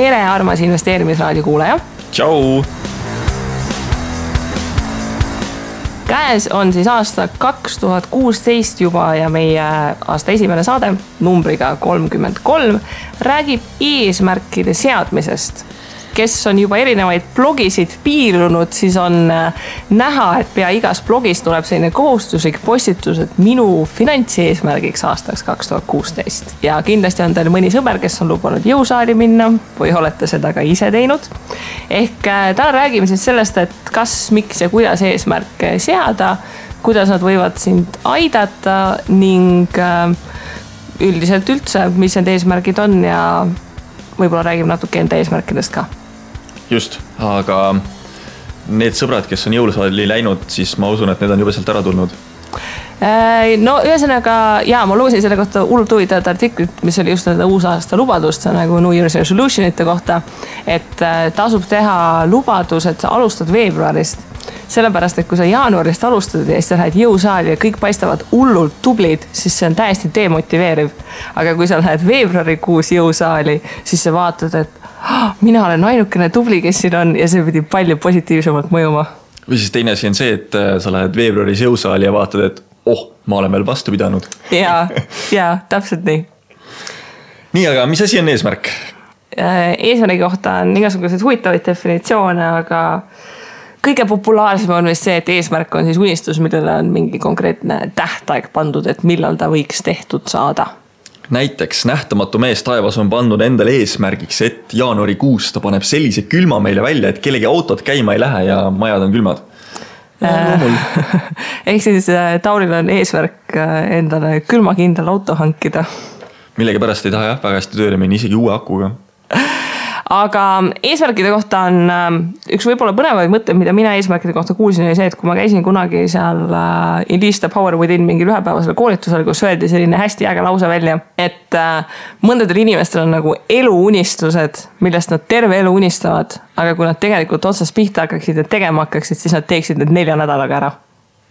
tere, armas investeerimisraadio kuulaja. Tšau! Käes on siis aasta 2016 juba ja meie aasta esimene saade numbriga 33 räägib eesmärkide seadmisest. Kes on juba erinevaid blogisid piirunud, siis on näha, et pea igas blogis tuleb selline kohustuslik postitus, et minu finantseesmärgiks aastaks 2016. Ja kindlasti on teil mõni sõber, kes on lubanud jõusaali minna või olete seda ka ise teinud. Ehk täna räägime siis sellest, et kas, miks ja kuidas eesmärke seada, kuidas nad võivad sind aidata ning üldiselt üldse, mis need eesmärgid on ja võib-olla räägime natuke enda eesmärkidest ka. Just, aga need sõbrad, kes on jõulusaali läinud, siis ma usun, et need on juba sealt ära tulnud. No ühesõnaga, ma lugesin selle kohta hullult huvitavat artiklit, mis oli just uusaasta lubadust, nagu New Year's Resolutionite kohta, et tasub teha lubadus, et sa alustad veebruarist. Sellepärast, et kui sa jaanuarist alustad ja siis lähed jõusaali ja kõik paistavad hullult tublid, siis see on täiesti demotiveeriv. Aga kui sa lähed veebruarikuus jõusaali, siis sa vaatad, et mina olen ainukene tubli, kes siin on ja see pidi palju positiivsemalt mõjuma. Või siis teine asi on see, et sa lähed veebruaris jõusaali ja vaatad, et ma olen veel vastu pidanud. Ja, täpselt nii. Nii, aga mis asi on eesmärk? Eesmärgi kohta on igasugused huvitavaid definitsioone, aga kõige populaarsem on vist see, et eesmärk on siis unistus, millele on mingi konkreetne tähtaeg pandud, et millal ta võiks tehtud saada. Näiteks nähtamatu mees taevas on pandud endale eesmärgiks, et jaanuarikuus ta paneb sellise külma meile välja, et kellegi autod käima ei lähe ja majad on külmad. Ehk siis Tauril on eesmärk endale külmakindel auto hankida. Millegi pärast ei taha väga hästi tööle minna, isegi uue akuga. Aga eesmärkide kohta on üks võib-olla põnevaid mõtteid, mida mina eesmärkide kohta kuulsin, oli see, et kui ma käisin kunagi seal Unleash the Power Within mingi ühepäevasel koolitusel, kus öeldi selline hästi äge lause välja, et mõndadel inimestel on nagu eluunistused, millest nad terve elu unistavad, aga kui nad tegelikult otsast pihta hakkaksid ja tegema hakkaksid, siis nad teeksid need 4 nädalaga ära.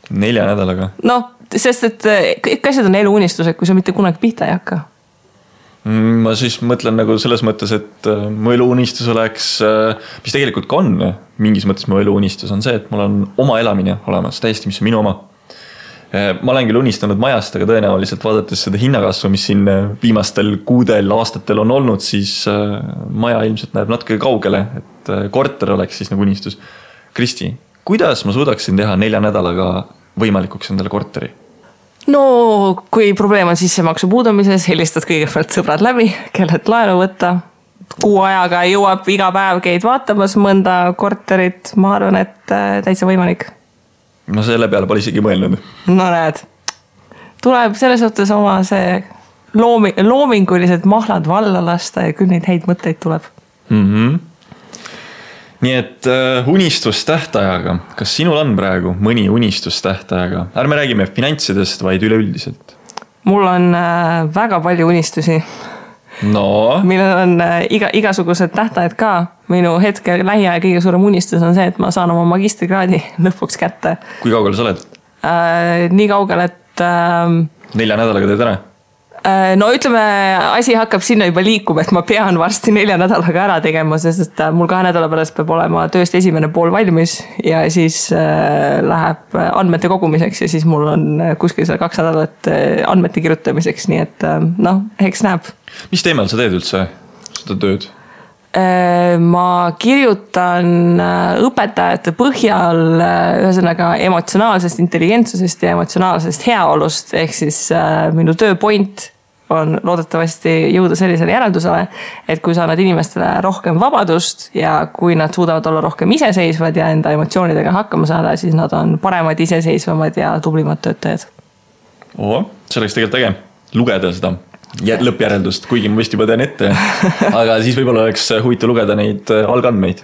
4 nädalaga? No, sest et kõik asjad on eluunistused, kui sa mitte kunagi pihta ei hakka. Ma siis mõtlen nagu selles mõttes, et mu eluunistus oleks, mis tegelikult ka on, mingis mõttes mu eluunistus on see, et mul on oma elamine olemas, täiesti mis on minu oma. Ma olen küll unistanud majast, aga tõenäoliselt vaadates seda hinnakasvu, mis siin viimastel kuudel, aastatel on olnud, siis maja ilmselt näeb natuke kaugele, et korter oleks siis nagu unistus. Kristi, kuidas ma suudaksin teha 4 nädalaga võimalikuks endale korteri? No, kui probleem on sissemaksu puudumises, helistad kõigepealt sõbrad läbi, kellelt laenu võtta. Kuu ajaga jõuab iga päev käid vaatamas mõnda korterit. Ma arvan, et täitsa võimalik. Ma selle peale pole isegi mõelnud. No näed, tuleb selles suhtes oma see loomingulised mahlad valla lasta ja küll neid häid mõtteid tuleb. Nii et unistustähtajaga, kas sinul on praegu mõni unistustähtajaga? Ärme räägime finantsidest, vaid üleüldiselt. Mul on väga palju unistusi. No? Millel on igasugused tähtajad ka. Minu hetke lähiaja kõige suurem unistus on see, et ma saan oma magistrikraadi lõpuks kätte. Kui kaugele sa oled? Nii kaugele, et 4 nädalaga teed ära? No ütleme, asi hakkab sinna juba liikuma, et ma pean varsti 4 nädalaga ära tegema, sest mul 2 nädala pärast peab olema tööst esimene pool valmis ja siis läheb andmete kogumiseks ja siis mul on kuskil seal 2 nädalat andmete kirjutamiseks, nii et eks näeb. Mis teemal sa teed üldse seda tööd? Ma kirjutan õpetajate põhjal ühesõnaga emotsionaalsest intelligentsusest ja emotsionaalsest heaolust, ehk siis minu tööpoint on loodetavasti jõuda sellisele järeldusele, et kui sa annad inimestele rohkem vabadust ja kui nad suudavad olla rohkem iseseisvad ja enda emotsioonidega hakkama saada, siis nad on paremad, iseseisvamad ja tublimad töötajad. See oleks tegelikult äge lugeda seda lõppjäreldust, kuigi ma vist juba tean ette, aga siis võib-olla oleks huvitav lugeda neid algandmeid.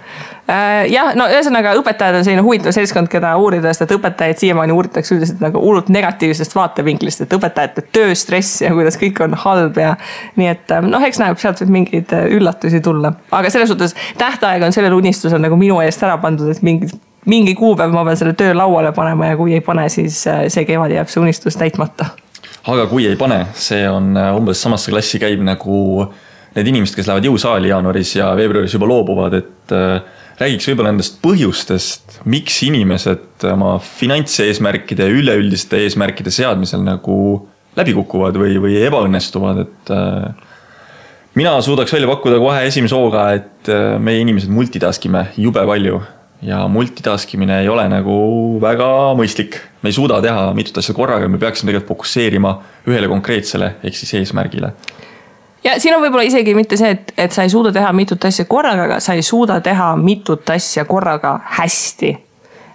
Jah, no ühesõnaga õpetajad on selline huvitav seltskond, keda uurida, sest et õpetajaid siiamaani uuritakse üldiselt nagu hullult negatiivsest vaatevinklist, et õpetajate tööstress ja kuidas kõik on halb ja nii et eks näeb sealt võib mingeid üllatusi tulla. Aga selles suhtes tähtaeg on sellel unistusel nagu minu eest ära pandud, et mingi kuupäev ma pean selle töö lauale panema ja kui ei pane, siis see kevad jääb see unistus täitmata. Aga kui ei pane, see on umbes samasse klassi käib nagu need inimesed, kes lähevad jõusaali jaanuaris ja veebruaris juba loobuvad, et räägiks võib-olla nendest põhjustest, miks inimesed oma finantseesmärkide ja üleüldiste eesmärkide seadmisel nagu läbi kukuvad või ebaõnnestuvad, et mina suudaks välja pakkuda kohe esimese hooga, et meie inimesed multitaskime jube palju ja multitaskimine ei ole nagu väga mõistlik. Me ei suuda teha mitut asja korraga, me peaksime tegelikult fokusseerima ühele konkreetsele ehk siis eesmärgile. Ja siin on võib-olla isegi mitte see, et sa ei suuda teha mitut asja korraga, aga sa ei suuda teha mitut asja korraga hästi.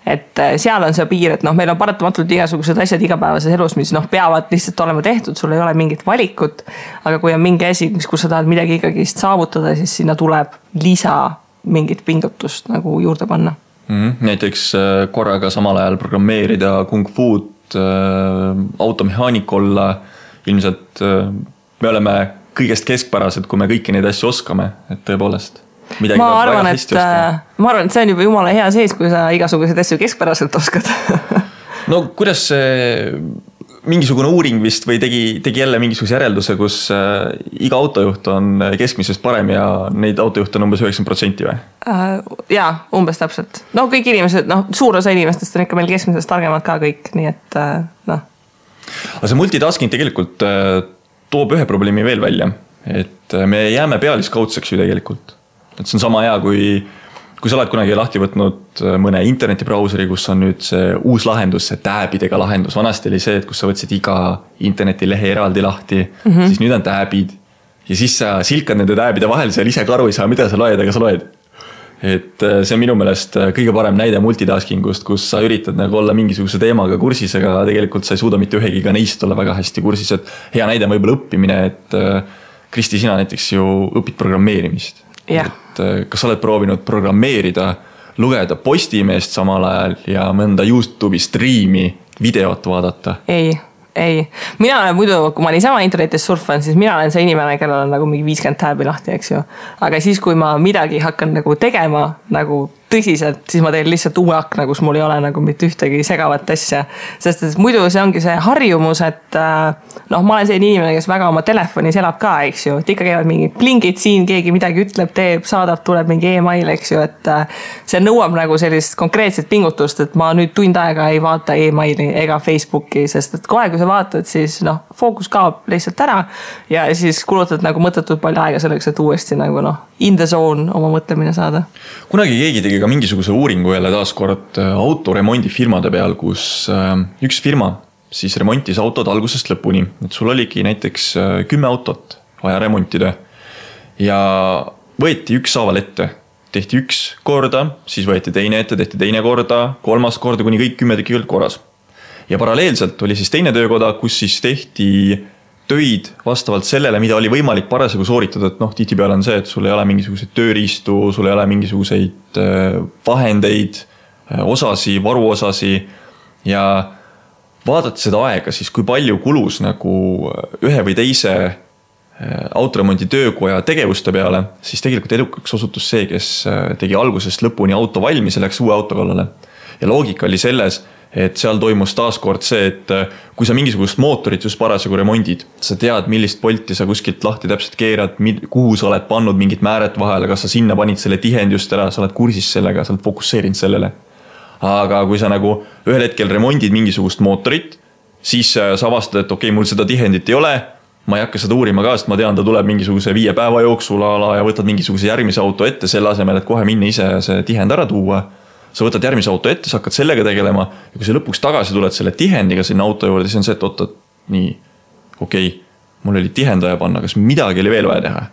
Et seal on see piir, et meil on paratamatult igasugused asjad igapäevases elus, mis peavad lihtsalt olema tehtud, sul ei ole mingit valikut, aga kui on mingi asi, kus sa tahad midagi ikkagi saavutada, siis sinna tuleb lisa mingit pingutust nagu juurde panna. Näiteks korraga samal ajal programmeerida kung fu'd, automehaanik olla, ilmselt me oleme kõigest keskpärased, kui me kõiki neid asju oskame, et tõepoolest. Ma arvan, et see on juba jumala hea sees, kui sa igasuguseid asju keskpäraselt oskad. No kuidas see mingisugune uuring vist või tegi jälle mingisuguse järelduse, kus iga autojuht on keskmisest parem ja neid autojuhte on umbes 90% või? Jaa, umbes täpselt. No kõik inimesed, suur osa inimestest on ikka meil keskmisest targemad ka kõik, nii et Aga see multitasking tegelikult toob ühe probleemi veel välja, et me jääme pealiskaudseks ju tegelikult. Et see on sama hea, kui sa oled kunagi lahti võtnud mõne internetibrauseri, kus on nüüd see uus lahendus, see tääbidega lahendus. Vanasti oli see, et kus sa võtsid iga internetilehe eraldi lahti, siis nüüd on tääbid. Ja siis sa silkad nende tääbide vahel, seal ise ka aru ei saa, mida sa loed, aga sa loed. Et see on minu meelest kõige parem näide multitaskingust, kus sa üritad nagu olla mingisuguse teemaga kursis, aga tegelikult sa ei suuda mitte ühegiga neist olla väga hästi kursis. Et hea näide on võib-olla õppimine, et Kristi, sina näiteks ju õpid programmeerimist. Yeah. Et kas sa oled proovinud programmeerida, lugeda Postimeest samal ajal ja mõnda YouTube'i striimi videot vaadata? Ei. Mina olen muidu, kui ma niisama internetis surfan, siis mina olen see inimene, kellel on nagu mingi 50 tääbi lahti, eks ju. Aga siis, kui ma midagi hakkan nagu tegema nagu tõsiselt, siis ma teen lihtsalt uue akna, kus mul ei ole nagu mitte ühtegi segavat asja. Sest et muidu see ongi see harjumus, et ma olen selline inimene, kes väga oma telefonis elab ka, eks ju. Et ikka käivad mingi plingid siin, keegi midagi ütleb, teeb, saadab, tuleb mingi e-mail, eks ju. Et see nõuab nagu sellist konkreetset pingutust, et ma nüüd tund aega ei vaata e-maili ega Facebooki, sest et kohe, kui sa vaatad, siis fookus kaob lihtsalt ära ja siis kulutad nagu mõttetult palju aega selleks, et uuesti nagu in the zone oma mõtlemine saada. Kunagi keegi tegi ka mingisuguse uuringu jälle taaskord autoremondifirmade peal, kus üks firma siis remontis autod algusest lõpuni. Et sul oligi näiteks 10 autot vaja remontida ja võeti ükshaaval ette. Tehti üks korda, siis võeti teine ette, tehti teine korda, kolmas korda, kuni kõik 10 tükki korras. Ja paralleelselt oli siis teine töökoda, kus siis tehti töid vastavalt sellele, mida oli võimalik parasjagu sooritada, et tihtipeale on see, et sul ei ole mingisuguseid tööriistu, sul ei ole mingisuguseid vahendeid, osasi, varuosasi ja vaadata seda aega, siis kui palju kulus nagu ühe või teise autoremondi töökoja tegevuste peale, siis tegelikult edukaks osutus see, kes tegi algusest lõpuni auto valmis ja läks uue auto kallale. Ja loogika oli selles, et seal toimus taaskord see, et kui sa mingisugust mootorit just parasjagu remondid, sa tead, millist polti sa kuskilt lahti täpselt keerad, kuhu sa oled pannud mingit määret vahele, kas sa sinna panid selle tihend just ära, sa oled kursis sellega, sa oled fokusseerinud sellele. Aga kui sa nagu ühel hetkel remondid mingisugust mootorit, siis sa avastad, et okei, mul seda tihendit ei ole, ma ei hakka seda uurima ka, sest ma tean, ta tuleb mingisuguse 5 päeva jooksul ala ja võtad mingisuguse järgmise auto ette selle asemel, et kohe minna ise see tihend ära tuua. Sa võtad järgmise auto ette, sa hakkad sellega tegelema ja kui sa lõpuks tagasi tuled selle tihendiga sinna auto juurde, siis on see, et oota, nii, okei, mul oli tihendaja panna, kas midagi oli veel vaja teha.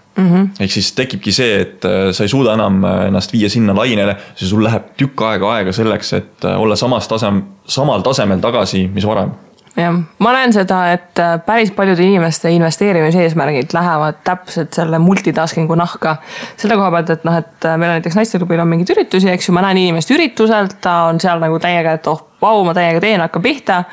Ehk siis tekibki see, et sa ei suuda enam ennast viia sinna lainele, siis sul läheb tükk aega selleks, et olla samal tasemel tagasi, mis varem. Ja, ma näen seda, et päris paljude inimeste investeerimiseesmärgid lähevad täpselt selle multitaskingu nahka. Selle koha pealt, et meil on näiteks naisteklubil on mingid üritusi, eks ju, ma näen inimest ürituselt, ta on seal nagu täiega, et vau, ma täiega teen, hakka pihta.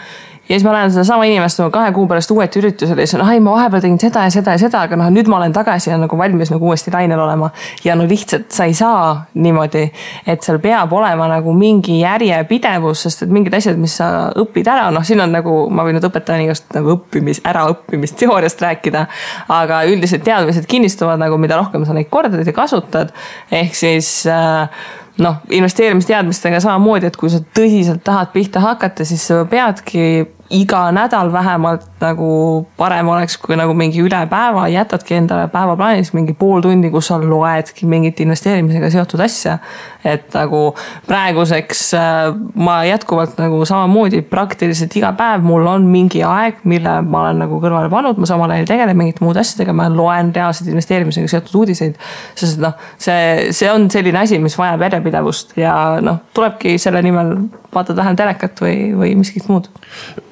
Ja siis ma lähen seda sama inimest 2 kuu pärast uueti üritusele ja siis ma vahepeal tegin seda ja seda ja seda, aga nüüd ma olen tagasi ja nagu valmis nagu uuesti lainel olema. Ja lihtsalt sa ei saa niimoodi, et seal peab olema nagu mingi järjepidevus, sest et mingid asjad, mis sa õpid ära, siin on nagu, ma võin nüüd õpetajani igast nagu äraõppimist teooriast rääkida, aga üldiselt teadmised kinnistuvad nagu, mida rohkem sa neid kordad ja kasutad, ehk siis investeerimisteadmistega samamoodi, et kui sa tõsiselt tahad pihta hakata, siis sa peadki iga nädal vähemalt nagu parem oleks, kui nagu mingi üle päeva jätadki endale päevaplaanis mingi pool tundi, kus sa loedki mingit investeerimisega seotud asja. Et nagu praeguseks ma jätkuvalt nagu samamoodi praktiliselt iga päev mul on mingi aeg, mille ma olen nagu kõrvale pannud, ma samal ajal tegelen mingit muud asjadega, ma loen reaalselt investeerimisega seotud uudiseid, sest see on selline asi, mis vajab järjepidevust ja tulebki selle nimel vaatad vähem telekat või miskit muud.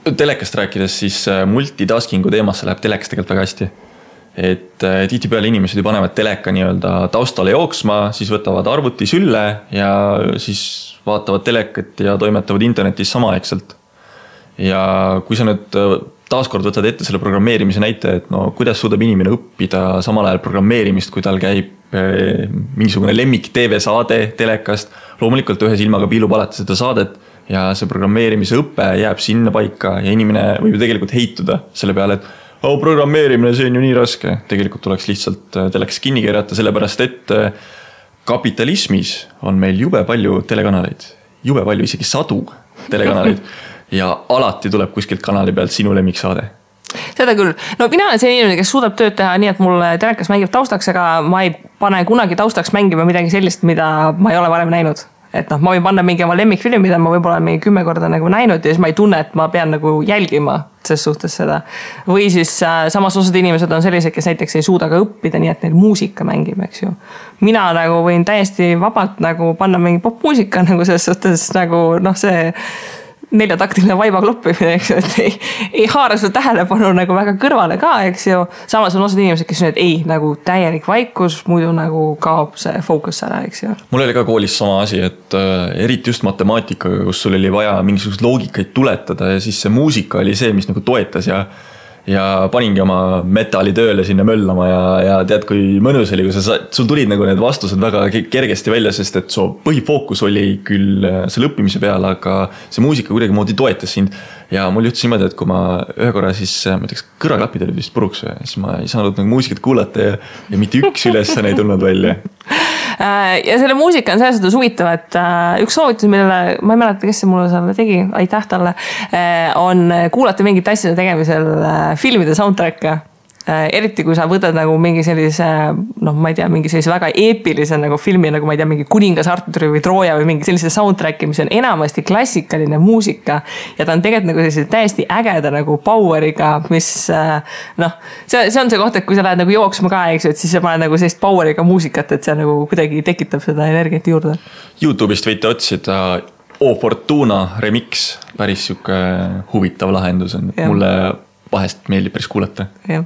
Telekast rääkides, siis multitaskingu teemasse läheb telekas tegelikult väga hästi. Et tihtipeale inimesed ju panevad teleka nii-öelda taustale jooksma, siis võtavad arvuti sülle ja siis vaatavad telekat ja toimetavad internetis samaaegselt. Ja kui sa nüüd taaskord võtad ette selle programmeerimise näite, et kuidas suudab inimene õppida samal ajal programmeerimist, kui tal käib mingisugune lemmik TV-saade telekast, loomulikult ühe silmaga piilub alati seda saadet ja see programmeerimise õppe jääb sinna paika ja inimene võib ju tegelikult heituda selle peale, et programmeerimine, see on ju nii raske. Tegelikult tuleks lihtsalt telekas kinni keerata, sellepärast et kapitalismis on meil jube palju telekanaleid, jube palju, isegi 100 telekanaleid ja alati tuleb kuskilt kanali pealt sinu lemmiksaade. Seda küll. Mina olen see inimene, kes suudab tööd teha nii, et mul telekas mängib taustaks, aga ma ei pane kunagi taustaks mängima midagi sellist, mida ma ei ole varem näinud. Et ma võin panna mingi oma lemmikfilmi, mida ma võib-olla mingi 10 korda nagu näinud ja siis ma ei tunne, et ma pean nagu jälgima ses suhtes seda. Või siis samas osad inimesed on sellised, kes näiteks ei suuda ka õppida, nii et neil muusika mängib, eks ju. Mina nagu võin täiesti vabalt nagu panna mingi popmuusika nagu ses suhtes nagu see 4-taktiline vaiba kloppimine, eks ju, et ei haara su tähelepanu nagu väga kõrvale ka, eks ju. Samas on osad inimesed, kes on, et ei, nagu täielik vaikus, muidu nagu kaob see fookus ära, eks ju. Mul oli ka koolis sama asi, et eriti just matemaatikaga, kus sul oli vaja mingisugust loogikaid tuletada ja siis see muusika oli see, mis nagu toetas ja paningi oma metali tööle sinna möllama ja tead, kui mõnus oli, kui sul tulid nagu need vastused väga kergesti välja, sest et su põhifookus oli küll selle õppimise peale, aga see muusika kuidagi moodi toetas sind. Ja mul juhtus niimoodi, et kui ma ühe korra siis, ma ütleks, kõrvaklapid olid vist puruks, siis ma ei saanud nagu muusikat kuulata ja mitte üks ülesanne ei tulnud välja. Ja selle muusika on selles suhtes huvitav, et üks soovitus, millele ma ei mäleta, kes see mulle selle tegi, aitäh talle, on kuulata mingit asjade tegemisel filmide soundtracka. Eriti kui sa võtad nagu mingi sellise, ma ei tea, mingi sellise väga eepilise nagu filmi, nagu ma ei tea, mingi Kuningas Arturi või Trooja või mingi sellise soundtracki, mis on enamasti klassikaline muusika ja ta on tegelikult nagu sellise täiesti ägeda nagu poweriga, mis see on see koht, et kui sa lähed nagu jooksma ka, eks ju, et siis sa paned nagu sellist poweriga muusikat, et see nagu kuidagi tekitab seda energiat juurde. YouTube'ist võite otsida O Fortuna remix, päris siuke huvitav lahendus on, mulle vahest meeldib päris kuulata. Ja.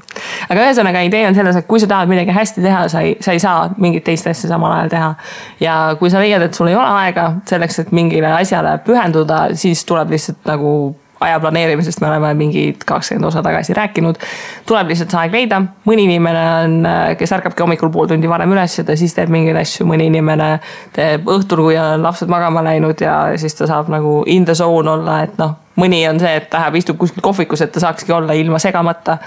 Aga ühesõnaga idee on selles, et kui sa tahad midagi hästi teha, sa ei saa mingit teist asja samal ajal teha. Ja kui sa leiad, et sul ei ole aega selleks, et mingile asjale pühenduda, siis tuleb lihtsalt nagu aja planeerimisest, me oleme mingi 20 osa tagasi rääkinud, tuleb lihtsalt see aeg leida. Mõni inimene on, kes ärkabki hommikul pool tundi varem üles ja ta siis teeb mingeid asju, mõni inimene teeb õhtul, kui on lapsed magama läinud ja siis ta saab nagu in the zone olla, et mõni on see, et ta istub kuskil kohvikus, et ta saakski olla ilma segamata.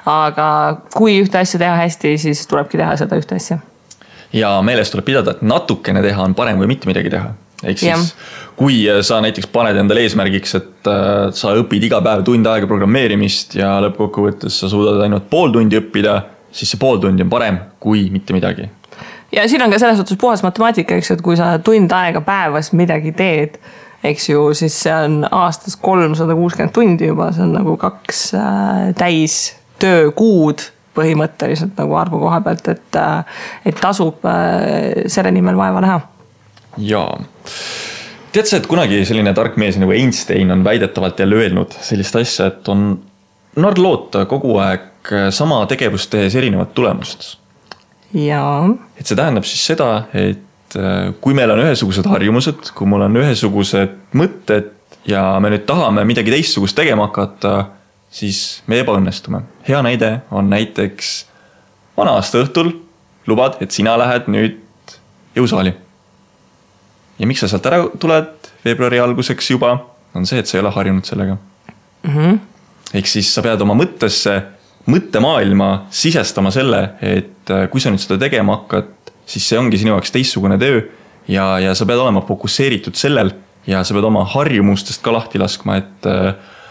Aga kui ühte asja teha hästi, siis tulebki teha seda ühte asja. Ja meeles tuleb pidada, et natukene teha on parem või mitte midagi teha. Ehk siis, kui sa näiteks paned endale eesmärgiks, et sa õpid iga päev tund aega programmeerimist ja lõppkokkuvõttes sa suudad ainult pool tundi õppida, siis see pool tundi on parem kui mitte midagi. Ja siin on ka selles suhtes puhas matemaatika, eks, et kui sa tund aega päevas midagi teed, eks ju, siis see on aastas 360 tundi juba, see on nagu 2 täis töökuud põhimõtteliselt nagu arvu koha pealt, et tasub selle nimel vaeva näha. Jaa. Tead sa, et kunagi selline tark mees nagu Einstein on väidetavalt jälle öelnud sellist asja, et on narr loota kogu aeg sama tegevust tehes erinevat tulemust. Jaa. Et see tähendab siis seda, et kui meil on ühesugused harjumused, kui mul on ühesugused mõtted ja me nüüd tahame midagi teistsugust tegema hakata, siis me ebaõnnestume. Hea näide on näiteks vana aasta õhtul lubad, et sina lähed nüüd jõusaali. Ja miks sa sealt ära tuled veebruari alguseks juba, on see, et sa ei ole harjunud sellega. Ehk siis sa pead oma mõttemaailma sisestama selle, et kui sa nüüd seda tegema hakkad, siis see ongi sinu jaoks teistsugune töö ja sa pead olema fokusseeritud sellel ja sa pead oma harjumustest ka lahti laskma, et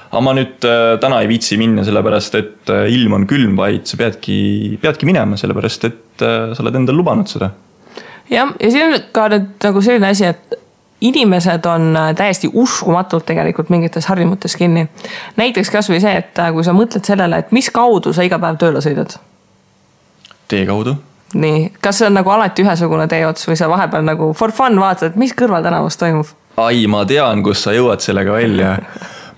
ma nüüd täna ei viitsi minna sellepärast, et ilm on külm, vaid sa peadki minema sellepärast, et sa oled endal lubanud seda. Ja siin on ka nüüd nagu selline asi, et inimesed on täiesti uskumatult tegelikult mingites harjumutes kinni. Näiteks kas või see, et kui sa mõtled sellele, et mis kaudu sa iga päev tööle sõidad? Tee kaudu. Nii, kas see on nagu alati ühesugune teeots või sa vahepeal nagu for fun vaatad, et mis kõrval tänavus toimub? Ai, ma tean, kus sa jõuad sellega välja.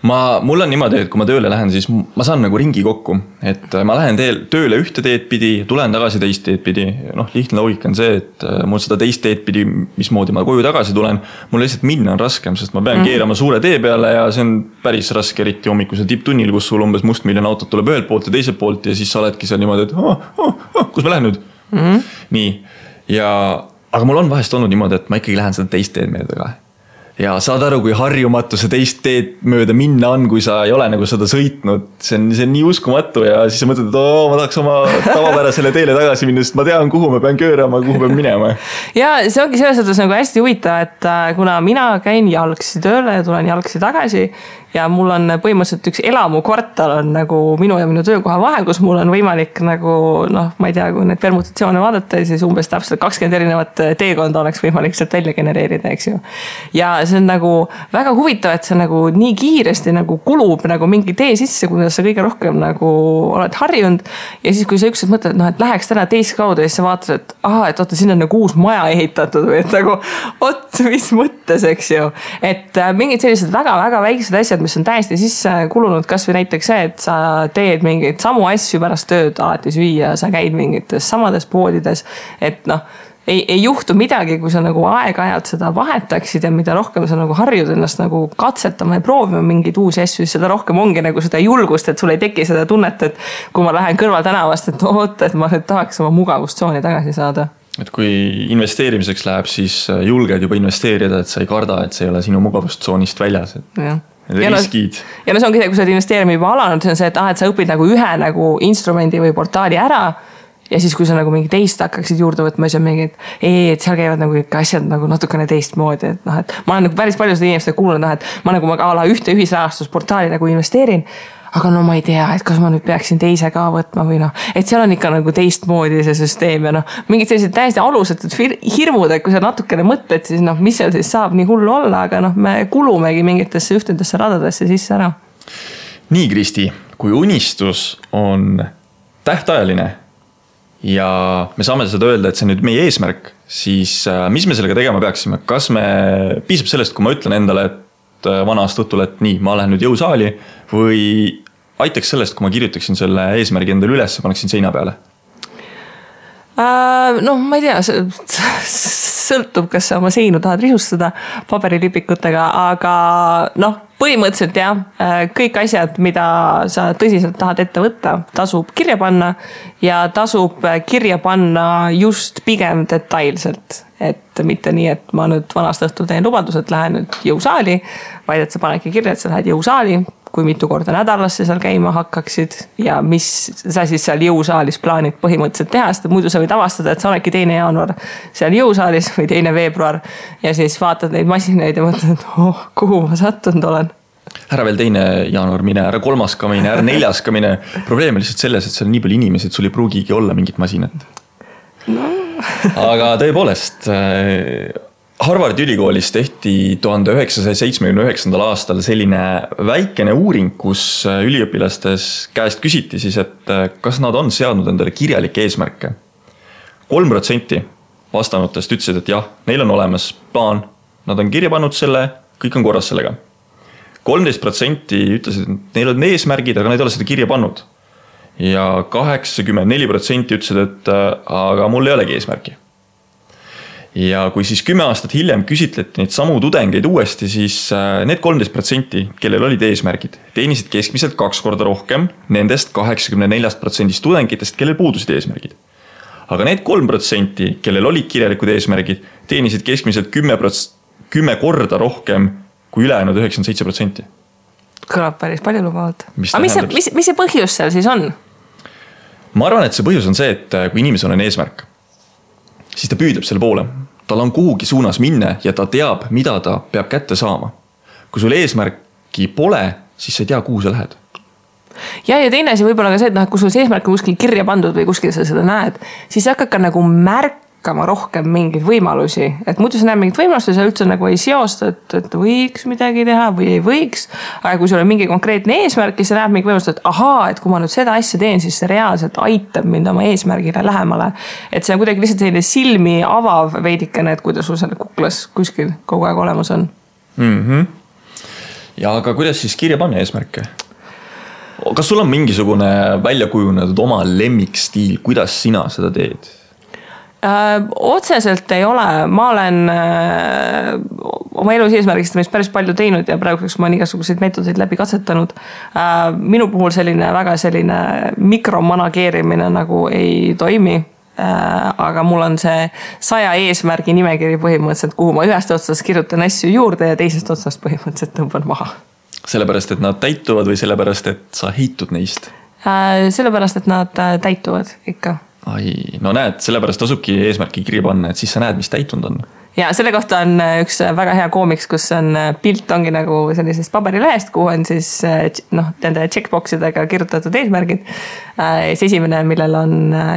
Mul on niimoodi, et kui ma tööle lähen, siis ma saan nagu ringi kokku, et ma lähen tööle ühte teed pidi, tulen tagasi teist teed pidi. Lihtne loogika on see, et mul seda teist teed pidi, mismoodi ma koju tagasi tulen, mul lihtsalt minna on raskem, sest ma pean keerama suure tee peale ja see on päris raske, eriti hommikusel tipptunnil, kus sul umbes mustmiljon autot tuleb ühelt poolt ja teiselt poolt ja siis sa oledki seal niimoodi, et kus ma lähen nüüd? Nii, aga mul on vahest olnud niimoodi, et ma ikkagi lähen seda teist teed mööda ka. Ja saad aru, kui harjumatu see teist teed mööda minna on, kui sa ei ole nagu seda sõitnud. See on nii uskumatu ja siis sa mõtled, et ma tahaks oma tavapärasele teele tagasi minna, sest ma tean, kuhu ma pean köörama, kuhu pean minema. Ja see ongi selles mõttes nagu hästi huvitav, et kuna mina käin jalgsi tööle ja tulen jalgsi tagasi ja mul on põhimõtteliselt üks elamukvartal on nagu minu ja minu töökoha vahel, kus mul on võimalik nagu, ma ei tea, kui need permutatsioone vaadata, siis umbes täpselt 20 erinevat teekonda oleks võimalik sealt välja genereerida, eks ju. Ja see on nagu väga huvitav, et see nagu nii kiiresti nagu kulub nagu mingi tee sisse, kuidas sa kõige rohkem nagu oled harjunud. Ja siis, kui sa ükskord mõtled, et läheks täna teist kaudu ja siis sa vaatad, et oota, siin on nagu uus maja ehitatud või et nagu, mis mõttes, eks ju. Et mingid sellised väga-väga väiksed asjad, mis on täiesti sisse kulunud, kas või näiteks see, et sa teed mingeid samu asju pärast tööd alati süüa, sa käid mingites samades poodides, et ei juhtu midagi, kui sa nagu aeg-ajalt seda vahetaksid ja mida rohkem sa nagu harjud ennast nagu katsetama ja proovima mingeid uusi asju, siis seda rohkem ongi nagu seda julgust, et sul ei teki seda tunnet, et kui ma lähen kõrval tänavast, et et ma nüüd tahaks oma mugavustsooni tagasi saada. Et kui investeerimiseks läheb, siis julged juba investeerida, et sa ei karda, et see ei ole sinu mugavustsoonist väljas. Riskid. Ja see ongi see, kui sa oled investeerima juba alanud, see on see, et sa õpid nagu ühe nagu instrumendi või portaali ära ja siis, kui sa nagu mingi teist hakkaksid juurde võtma, siis on mingi, et seal käivad nagu ikka asjad nagu natukene teistmoodi, et et ma olen nagu päris palju seda inimeste kuulnud, et ma nagu ühte ühisrahastusportaali nagu investeerin, aga ma ei tea, et kas ma nüüd peaksin teise ka võtma või et seal on ikka nagu teistmoodi see süsteem ja mingid sellised täiesti alusetud hirmud, et kui sa natukene mõtled, siis mis seal siis saab nii hullu olla, aga me kulumegi mingitesse ühtedesse radadesse sisse ära. Nii, Kristi, kui unistus on tähtajaline ja me saame seda öelda, et see on nüüd meie eesmärk, siis mis me sellega tegema peaksime? Kas me piisab sellest, kui ma ütlen endale, et vana aasta õhtul, et nii, ma lähen nüüd jõusaali või aitaks sellest, kui ma kirjutaksin selle eesmärgi endale üles ja paneksin seina peale? Ma ei tea, sõltub, kas sa oma seinu tahad risustada paberilipikutega, aga põhimõtteliselt jah, kõik asjad, mida sa tõsiselt tahad ette võtta, tasub kirja panna ja tasub kirja panna just pigem detailselt. Et mitte nii, et ma nüüd vanast õhtul teen lubadus, et lähen nüüd jõusaali, vaid et sa panedki kirja, et sa lähed jõusaali, kui mitu korda nädalas sa seal käima hakkaksid ja mis sa siis seal jõusaalis plaanid põhimõtteliselt teha, sest muidu sa võid avastada, et sa oledki 2. jaanuar seal jõusaalis või 2. veebruar ja siis vaatad neid masinaid ja mõtled, et kuhu ma sattunud olen. Ära veel 2. jaanuar mine, ära 3. ka mine, ära 4. ka mine. Probleem on lihtsalt selles, et seal on nii palju inimesi, et sul ei pruugigi olla mingit masinat. Aga tõepoolest, Harvardi ülikoolis tehti 1979. aastal selline väikene uuring, kus üliõpilastes käest küsiti siis, et kas nad on seadnud endale kirjalikke eesmärke. 3% vastanutest ütlesid, et jah, neil on olemas plaan, nad on kirja pannud selle, kõik on korras sellega. 13% ütlesid, et neil on eesmärgid, aga nad ei ole seda kirja pannud. Ja 84% ütlesid, et aga mul ei olegi eesmärki. ja kui siis 10 aastat hiljem küsitleti neid samu tudengeid uuesti, siis need 13%, kellel olid eesmärgid, teenisid keskmiselt 2 korda rohkem nendest 84% tudengitest, kellel puudusid eesmärgid. Aga need 3%, kellel olid kirjalikud eesmärgid, teenisid keskmiselt 10 korda rohkem kui ülejäänud 97%. Kõlab päris palju lubavalt. Aga mis see põhjus seal siis on? Ma arvan, et see põhjus on see, et kui inimesel on eesmärk, siis ta püüdleb selle poole. Tal on kuhugi suunas minna ja ta teab, mida ta peab kätte saama. Kui sul eesmärki pole, siis sa ei tea, kuhu sa lähed. Ja teine asi võib-olla ka see, et kui sul see eesmärk on kuskil kirja pandud või kuskil sa seda näed, siis sa hakkad ka nagu märkama rohkem mingeid võimalusi. Et muidu sa näed mingit võimalust ja sa üldse nagu ei seosta, et võiks midagi teha või ei võiks. Aga kui sul on mingi konkreetne eesmärk, siis sa näed mingi võimalust, et ahaa, et kui ma nüüd seda asja teen, siis see reaalselt aitab mind oma eesmärgile lähemale. Et see on kuidagi lihtsalt selline silmi avav veidikene, et kuidas sul selle kuklas kuskil kogu aeg olemas on. Ja aga kuidas siis kirja panna eesmärke? Kas sul on mingisugune välja kujunenud oma lemmikstiil, kuidas sina seda teed? Otseselt ei ole. Ma olen oma elus eesmärgistamist päris palju teinud ja praeguseks ma olen igasuguseid meetodeid läbi katsetanud. Minu puhul väga selline mikromanageerimine nagu ei toimi. Aga mul on see 100 eesmärgi nimekiri põhimõtteliselt, kuhu ma ühest otsast kirjutan asju juurde ja teisest otsast põhimõtteliselt tõmban maha. Sellepärast, et nad täituvad või sellepärast, et sa heitud neist? Sellepärast, et nad täituvad ikka. No näed, sellepärast tasubki eesmärki kirja panna, et siis sa näed, mis täitunud on. Ja selle kohta on üks väga hea koomiks, kus on pilt ongi nagu sellisest paberilehest, kuhu on siis nende checkboxidega kirjutatud eesmärgid. Esimene, millel on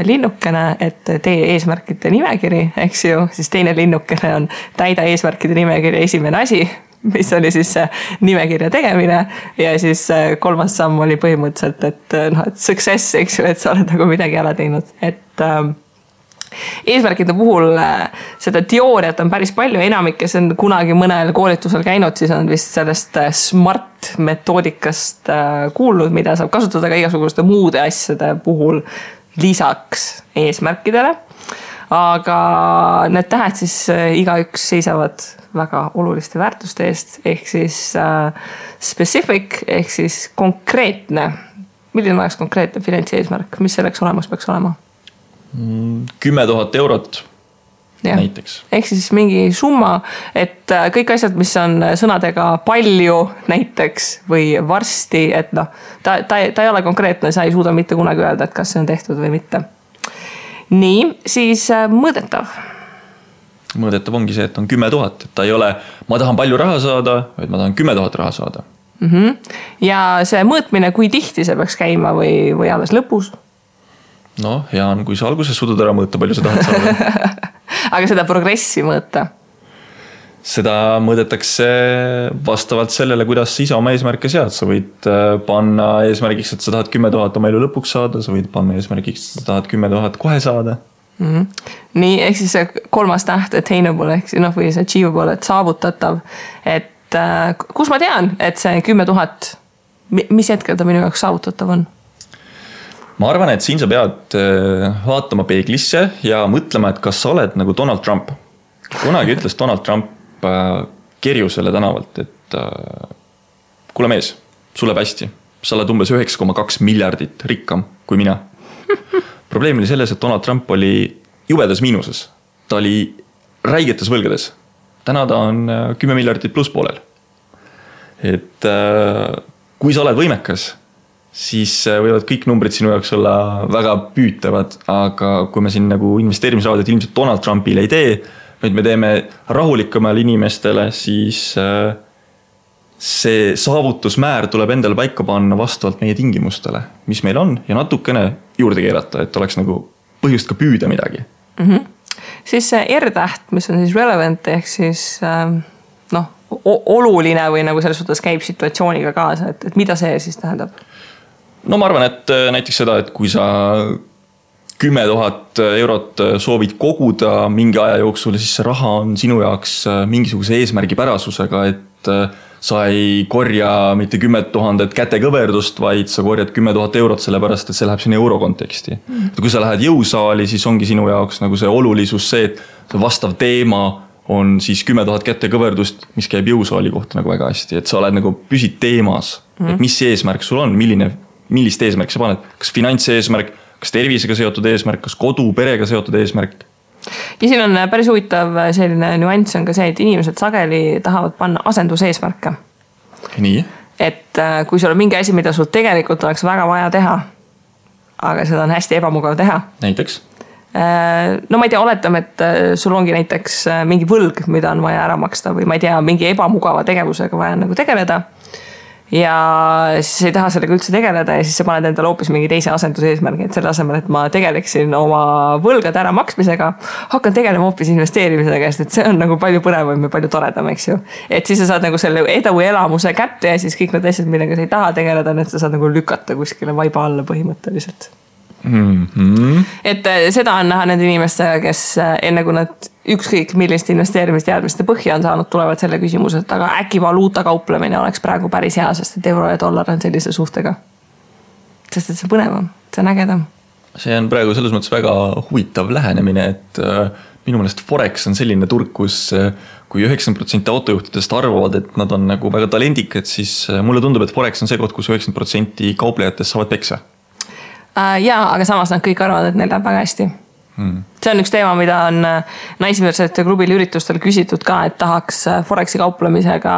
linnukene, et tee eesmärkide nimekiri, eks ju, siis teine linnukene on täida eesmärkide nimekiri esimene asi, mis oli siis nimekirja tegemine ja siis kolmas samm oli põhimõtteliselt, et success, eks ju, et sa oled nagu midagi ära teinud, et eesmärkide puhul seda teooriat on päris palju, enamik, kes on kunagi mõnel koolitusel käinud, siis on vist sellest smart metoodikast kuulnud, mida saab kasutada ka igasuguste muude asjade puhul lisaks eesmärkidele. Aga need tähed siis igaüks seisavad väga oluliste väärtuste eest, ehk siis specific, ehk siis konkreetne. Milline oleks konkreetne finantseesmärk, mis selleks olemas peaks olema? 10 000 eurot näiteks. Ehk siis mingi summa, et kõik asjad, mis on sõnadega palju näiteks või varsti, et ta ei ole konkreetne, sa ei suuda mitte kunagi öelda, et kas see on tehtud või mitte. Nii, siis mõõdetav. Mõõdetav ongi see, et on 10 000, et ta ei ole, ma tahan palju raha saada, vaid ma tahan 10 000 raha saada. Ja see mõõtmine, kui tihti see peaks käima või alles lõpus? No, hea on, kui sa alguses suudad ära mõõta, palju sa tahad saada. Aga seda progressi mõõta? Seda mõõdetakse vastavalt sellele, kuidas sa ise oma eesmärke sead. Sa võid panna eesmärgiks, et sa tahad 10 000 oma elu lõpuks saada, sa võid panna eesmärgiks, et sa tahad 10 000 kohe saada. Nii, ehk siis see kolmas täht attainable, ehk või see achievable, et saavutatav. Et kus ma tean, et see 10 000, mis hetkel ta minu jaoks saavutatav on? Ma arvan, et siin sa pead vaatama peeglisse ja mõtlema, et kas sa oled nagu Donald Trump. Kunagi ütles Donald Trump Kerjusele tänavalt, et kuule mees, sul läheb hästi. Sa oled umbes 9,2 miljardit rikkam kui mina. Probleem oli selles, et Donald Trump oli jubedas miinuses. Ta oli räigetes võlgades. Täna ta on 10 miljardit pluss poolel. Et kui sa oled võimekas, siis võivad kõik numbrid sinu jaoks olla väga püütavad, aga kui me siin nagu investeerimisraadid ilmselt Donald Trumpile ei tee, vaid me teeme rahulikumal inimestele, siis see saavutusmäär tuleb endale paika panna vastavalt meie tingimustele, mis meil on, ja natukene juurde keerata, et oleks nagu põhjust ka püüda midagi. Siis see R-täht, mis on siis relevant, ehk siis oluline või nagu selles suhtes käib situatsiooniga kaasa, et mida see siis tähendab? No ma arvan, et näiteks seda, et kui sa 10 000 eurot soovid koguda mingi aja jooksul, siis see raha on sinu jaoks mingisuguse eesmärgi pärasusega, et sa ei korja mitte 10 000 kätekõverdust, vaid sa korjad 10 000 eurot, sellepärast et see läheb sinna euro konteksti. Kui sa lähed jõusaali, siis ongi sinu jaoks nagu see olulisus see, et see vastav teema on siis 10 000 kätekõverdust, mis käib jõusaali kohta nagu väga hästi, et sa oled nagu püsid teemas, et mis eesmärk sul on, millist eesmärk sa paned, kas finantseesmärk, kas tervisega seotud eesmärk, kas kodu, perega seotud eesmärk. Ja siin on päris huvitav selline nüanss on ka see, et inimesed sageli tahavad panna asenduseesmärke. Nii? Et kui sul on mingi asi, mida sul tegelikult oleks väga vaja teha, aga seda on hästi ebamugav teha. Näiteks? No ma ei tea, oletame, et sul ongi näiteks mingi võlg, mida on vaja ära maksta või ma ei tea, mingi ebamugava tegevusega vaja nagu tegeleda. Ja siis ei taha sellega üldse tegeleda ja siis sa paned endale hoopis mingi teise asenduseesmärgi, et selle asemel, et ma tegeleksin oma võlgade ära maksmisega, hakkan tegelema hoopis investeerimisega, sest et see on nagu palju põnevam ja palju toredam, eks ju. Et siis sa saad nagu selle edu elamuse kätte ja siis kõik need asjad, millega sa ei taha tegeleda, need sa saad nagu lükata kuskile vaiba alla põhimõtteliselt. Et seda on näha nende inimestega, kes enne kui nad ükskõik millist investeerimisteadmiste põhja on saanud, tulevad selle küsimuse, et aga äkki valuuta kauplemine oleks praegu päris hea, sest et euro ja dollar on sellise suhtega. Sest et see põnevam, see on ägedam. See on praegu selles mõttes väga huvitav lähenemine, et minu meelest Forex on selline turg, kus kui 90% autojuhtidest arvavad, et nad on nagu väga talendikad, siis mulle tundub, et Forex on see koht, kus 90% kauplejatest saavad peksa. Jaa, aga samas nad kõik arvavad, et neil läheb väga hästi. See on üks teema, mida on naisversite klubil üritustel küsitud ka, et tahaks Forexi kauplemisega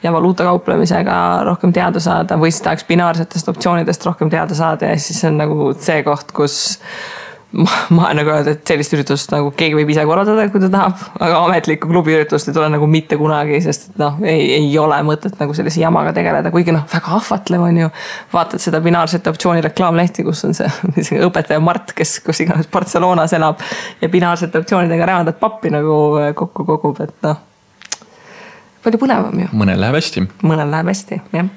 ja valuuta kauplemisega rohkem teada saada või siis tahaks binaarsetest optsioonidest rohkem teada saada ja siis on nagu see koht, kus ma nagu öelda, et sellist üritust nagu keegi võib ise korraldada, kui ta tahab, aga ametlikku klubi üritust ei tule nagu mitte kunagi, sest et ei ole mõtet nagu sellise jamaga tegeleda, kuigi väga ahvatlev on ju. Vaatad seda binaarsete optsiooni reklaamlehti, kus on see õpetaja Mart, kes kus iganes Barcelonas elab ja binaarsete optsioonidega räävandat pappi nagu kokku kogub, et palju põnevam ju. Mõnel läheb hästi. Mõnel läheb hästi, jah.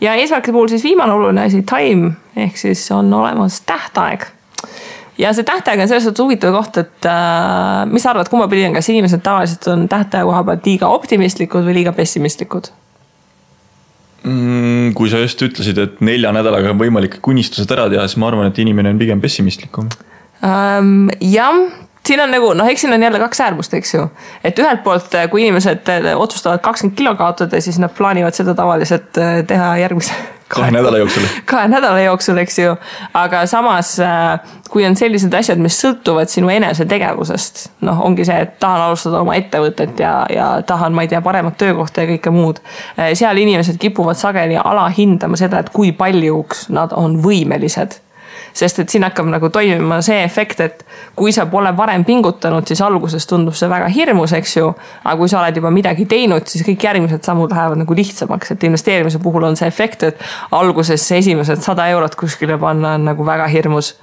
Ja eesmärkide puhul siis viimane oluline asi, time, ehk siis on olemas tähtaeg. Ja see tähtaeg on selles suhtes huvitav koht, et mis sa arvad, kumma pidi on, kas inimesed tavaliselt on tähtaja koha pealt liiga optimistlikud või liiga pessimistlikud? Kui sa just ütlesid, et 4 nädalaga on võimalik kunnistused ära teha, siis ma arvan, et inimene on pigem pessimistlikum. Jah, siin on nagu, eks siin on jälle 2 äärmust, eks ju. Et ühelt poolt, kui inimesed otsustavad 20 kilo kaotada, siis nad plaanivad seda tavaliselt teha järgmise 2 nädala jooksul. 2 nädala jooksul, eks ju. Aga samas, kui on sellised asjad, mis sõltuvad sinu enese tegevusest, ongi see, et tahan alustada oma ettevõtet ja tahan, ma ei tea, paremat töökohta ja kõike muud. Seal inimesed kipuvad sageli alahindama seda, et kui paljuks nad on võimelised. Sest et siin hakkab nagu toimima see efekt, et kui sa pole varem pingutanud, siis alguses tundub see väga hirmus, eks ju. Aga kui sa oled juba midagi teinud, siis kõik järgmised sammud lähevad nagu lihtsamaks. Et investeerimise puhul on see efekt, et alguses see esimesed 100 eurot kuskile panna on nagu väga hirmus.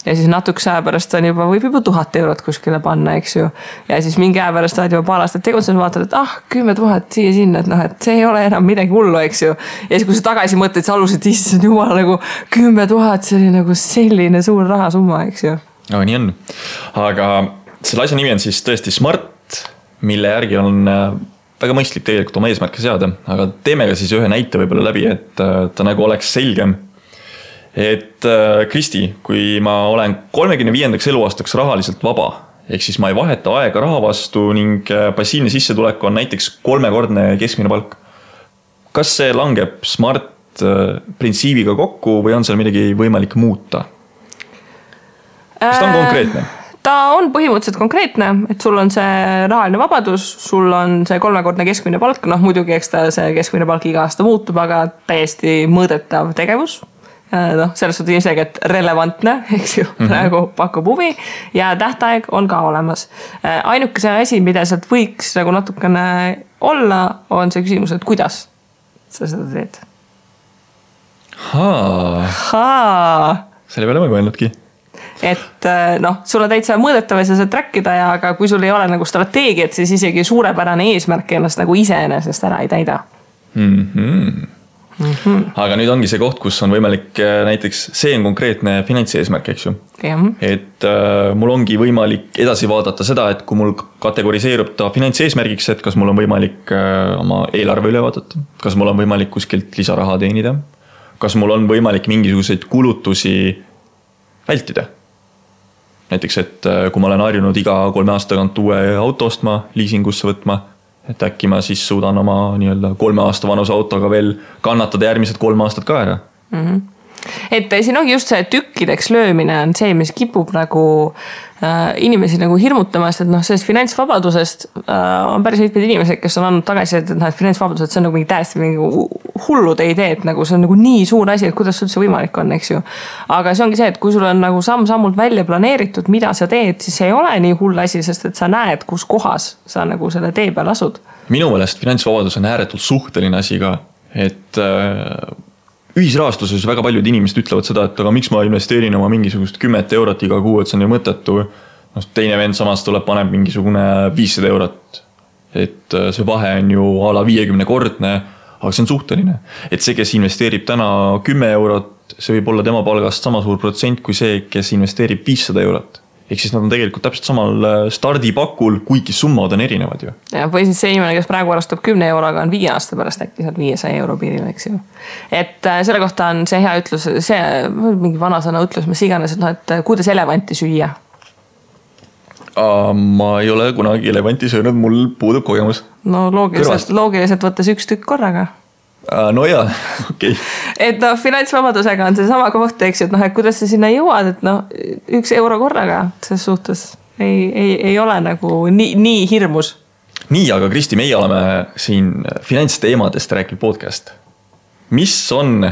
Ja siis natukese aja pärast võib juba 1000 eurot kuskile panna, eks ju. Ja siis mingi aja pärast oled juba paar aastat tegutsenud, vaatad, et 10 000 siia sinna, et see ei ole enam midagi hullu, eks ju. Ja siis kui sa tagasi mõtled, siis alusid issand jumal nagu 10 000, see oli nagu selline suur rahasumma, eks ju. No, nii on. Aga selle asja nimi on siis tõesti Smart, mille järgi on väga mõistlik tegelikult oma eesmärke seada. Aga teeme ka siis ühe näite võib-olla läbi, et ta nagu oleks selgem. Et Kristi, kui ma olen 35. eluaastaks rahaliselt vaba, ehk siis ma ei vaheta aega raha vastu ning passiivne sissetulek on näiteks 3-kordne keskmine palk. Kas see langeb Smart printsiibiga kokku või on seal midagi võimalik muuta? Kas ta on konkreetne? Ta on põhimõtteliselt konkreetne, et sul on see rahaline vabadus, sul on see 3-kordne keskmine palk, muidugi eks ta see keskmine palk iga aasta muutub, aga täiesti mõõdetav tegevus. Selles suhtes ilmselgelt relevantne, eks ju, praegu pakub huvi ja tähtaeg on ka olemas. Ainuke see asi, mida sealt võiks nagu natukene olla, on see küsimus, et kuidas sa seda teed? Selle peale ma ei mõelnudki. Et sul on täitsa mõõdetav ja sa saad trackida, aga kui sul ei ole nagu strateegiat, siis isegi suurepärane eesmärk ennast nagu iseenesest ära ei täida. Aga nüüd ongi see koht, kus on võimalik näiteks, see on konkreetne finantseesmärk, eks ju. Et mul ongi võimalik edasi vaadata seda, et kui mul kategoriseerub ta finantseesmärgiks, et kas mul on võimalik oma eelarve üle vaadata, kas mul on võimalik kuskilt lisaraha teenida, kas mul on võimalik mingisuguseid kulutusi vältida. Näiteks, et kui ma olen harjunud iga 3 aasta tagant uue auto ostma, liisingusse võtma, et äkki ma siis suudan oma 3 aasta vanuse autoga veel kannatada järgmised 3 aastat ka ära. Et siin ongi just see tükkideks löömine on see, mis kipub nagu inimesi nagu hirmutamast, et sellest finantsvabadusest on päris mitmed inimesed, kes on andnud tagasi, et finantsvabadus, et see on nagu mingi täiesti mingi hullude idee, et nagu see on nagu nii suur asi, et kuidas üldse võimalik on, eks ju. Aga see ongi see, et kui sul on nagu samm-sammult välja planeeritud, mida sa teed, siis see ei ole nii hull asi, sest et sa näed, kus kohas sa nagu selle tee peal asud. Minu meelest finantsvabadus on ääretult suhteline asi ka, et ühisrahastuses väga paljud inimesed ütlevad seda, et aga miks ma investeerin oma mingisugust 10 eurot iga kuu, et see on ju mõttetu. Teine vend samas tuleb, paneb mingisugune 500 eurot. Et see vahe on ju a la 50-kordne, aga see on suhteline. Et see, kes investeerib täna 10 eurot, see võib olla tema palgast sama suur protsent kui see, kes investeerib 500 eurot. Ehk siis nad on tegelikult täpselt samal stardipakul, kuigi summad on erinevad ju. Ja, või siis see inimene, kes praegu arvestab 10 euroga, on 5 aasta pärast äkki sealt 500 euro piiril, eks ju. Et selle kohta on see hea ütlus, see mingi vanasõna ütlus, mis iganes, et kuidas elevanti süüa? Ma ei ole kunagi elevanti söönud, mul puudub kogemus. No loogiliselt võttes 1 tükk korraga. No jaa, okei. Et finantsvabadusega on see sama koht, eks ju, et kuidas sa sinna jõuad, et 1 euro korraga selles suhtes ei ole nagu nii hirmus. Nii, aga Kristi, meie oleme siin finantsteemadest rääkinud podcast. Mis on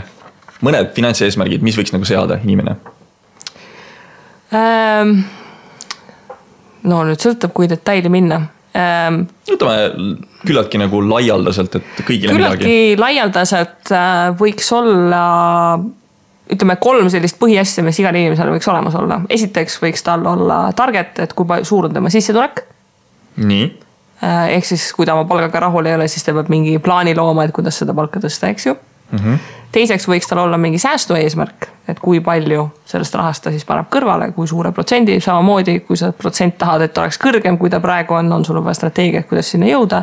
mõned finantseesmärgid, mis võiks nagu seada inimene? No nüüd sõltab, kui detaili minna. Ütleme küllaltki nagu laialdaselt, et kõigile midagi. Küllaltki laialdaselt võiks olla, ütleme 3 sellist põhiasja, mis igal inimesel võiks olemas olla. Esiteks võiks tal olla target, et kui suur on tema sissetulek. Nii. Ehk siis, kui ta oma palgaga rahul ei ole, siis ta peab mingi plaani looma, et kuidas seda palka tõsta, eks ju. Teiseks võiks tal olla mingi säästu eesmärk, et kui palju sellest rahast ta siis paneb kõrvale, kui suure protsendi, samamoodi, kui sa protsent tahad, et oleks kõrgem, kui ta praegu on sul vaja strateegia, kuidas sinna jõuda.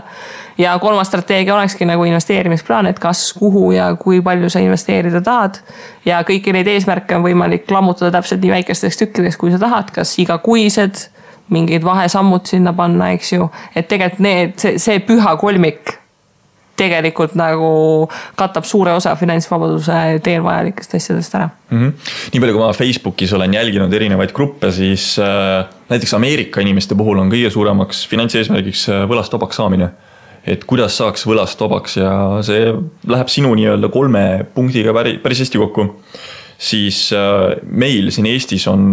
Ja 3. strateegia olekski nagu investeerimisplaan, et kas, kuhu ja kui palju sa investeerida tahad. Ja kõiki neid eesmärke on võimalik lammutada täpselt nii väikesteks tükkideks, kui sa tahad, kas igakuised, mingid vahesammud sinna panna, eks ju. Et tegelikult see püha kolmik tegelikult nagu katab suure osa finantsvabaduse teel vajalikest asjadest ära. Nii palju, kui ma Facebookis olen jälginud erinevaid gruppe, siis näiteks Ameerika inimeste puhul on kõige suuremaks finantseesmärgiks võlast vabaks saamine. Et kuidas saaks võlast vabaks ja see läheb sinu 3 punktiga päris hästi kokku. Siis meil siin Eestis on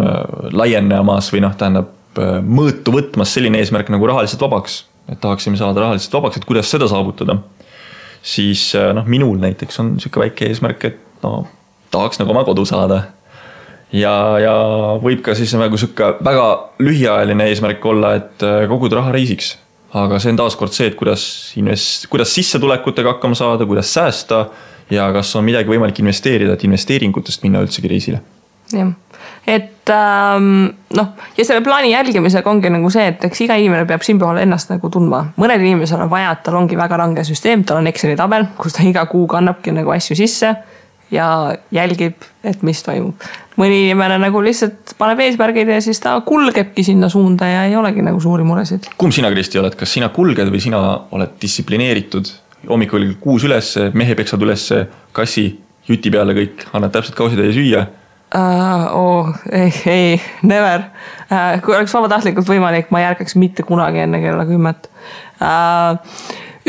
laienemas või tähendab mõõtu võtmas selline eesmärk nagu rahaliselt vabaks. Et tahaksime saada rahaliselt vabaks, et kuidas seda saavutada. Siis minul näiteks on siuke väike eesmärk, et tahaks nagu oma kodu saada. Ja võib ka siis nagu siuke väga lühiajaline eesmärk olla, et koguda raha reisiks. Aga see on taaskord see, et kuidas sissetulekutega hakkama saada, kuidas säästa ja kas on midagi võimalik investeerida, et investeeringutest minna üldsegi reisile. Jah. Et ja selle plaani jälgimisega ongi nagu see, et eks iga inimene peab siin puhul ennast nagu tundma. Mõned inimesel on vaja, et tal ongi väga range süsteem, tal on Exceli tabel, kus ta iga kuu kannabki nagu asju sisse ja jälgib, et mis toimub. Mõni inimene nagu lihtsalt paneb eesmärgid ja siis ta kulgebki sinna suunda ja ei olegi nagu suuri muresid. Kumb sina, Kristi, oled? Kas sina kulged või sina oled distsiplineeritud? Hommikul 6 üles, mehe peksad üles, kassi, juti peale kõik, annad täpselt kausitäie süüa. Ei, never. Kui oleks vabatahtlikult võimalik, ma ei ärkaks mitte kunagi enne kella 10.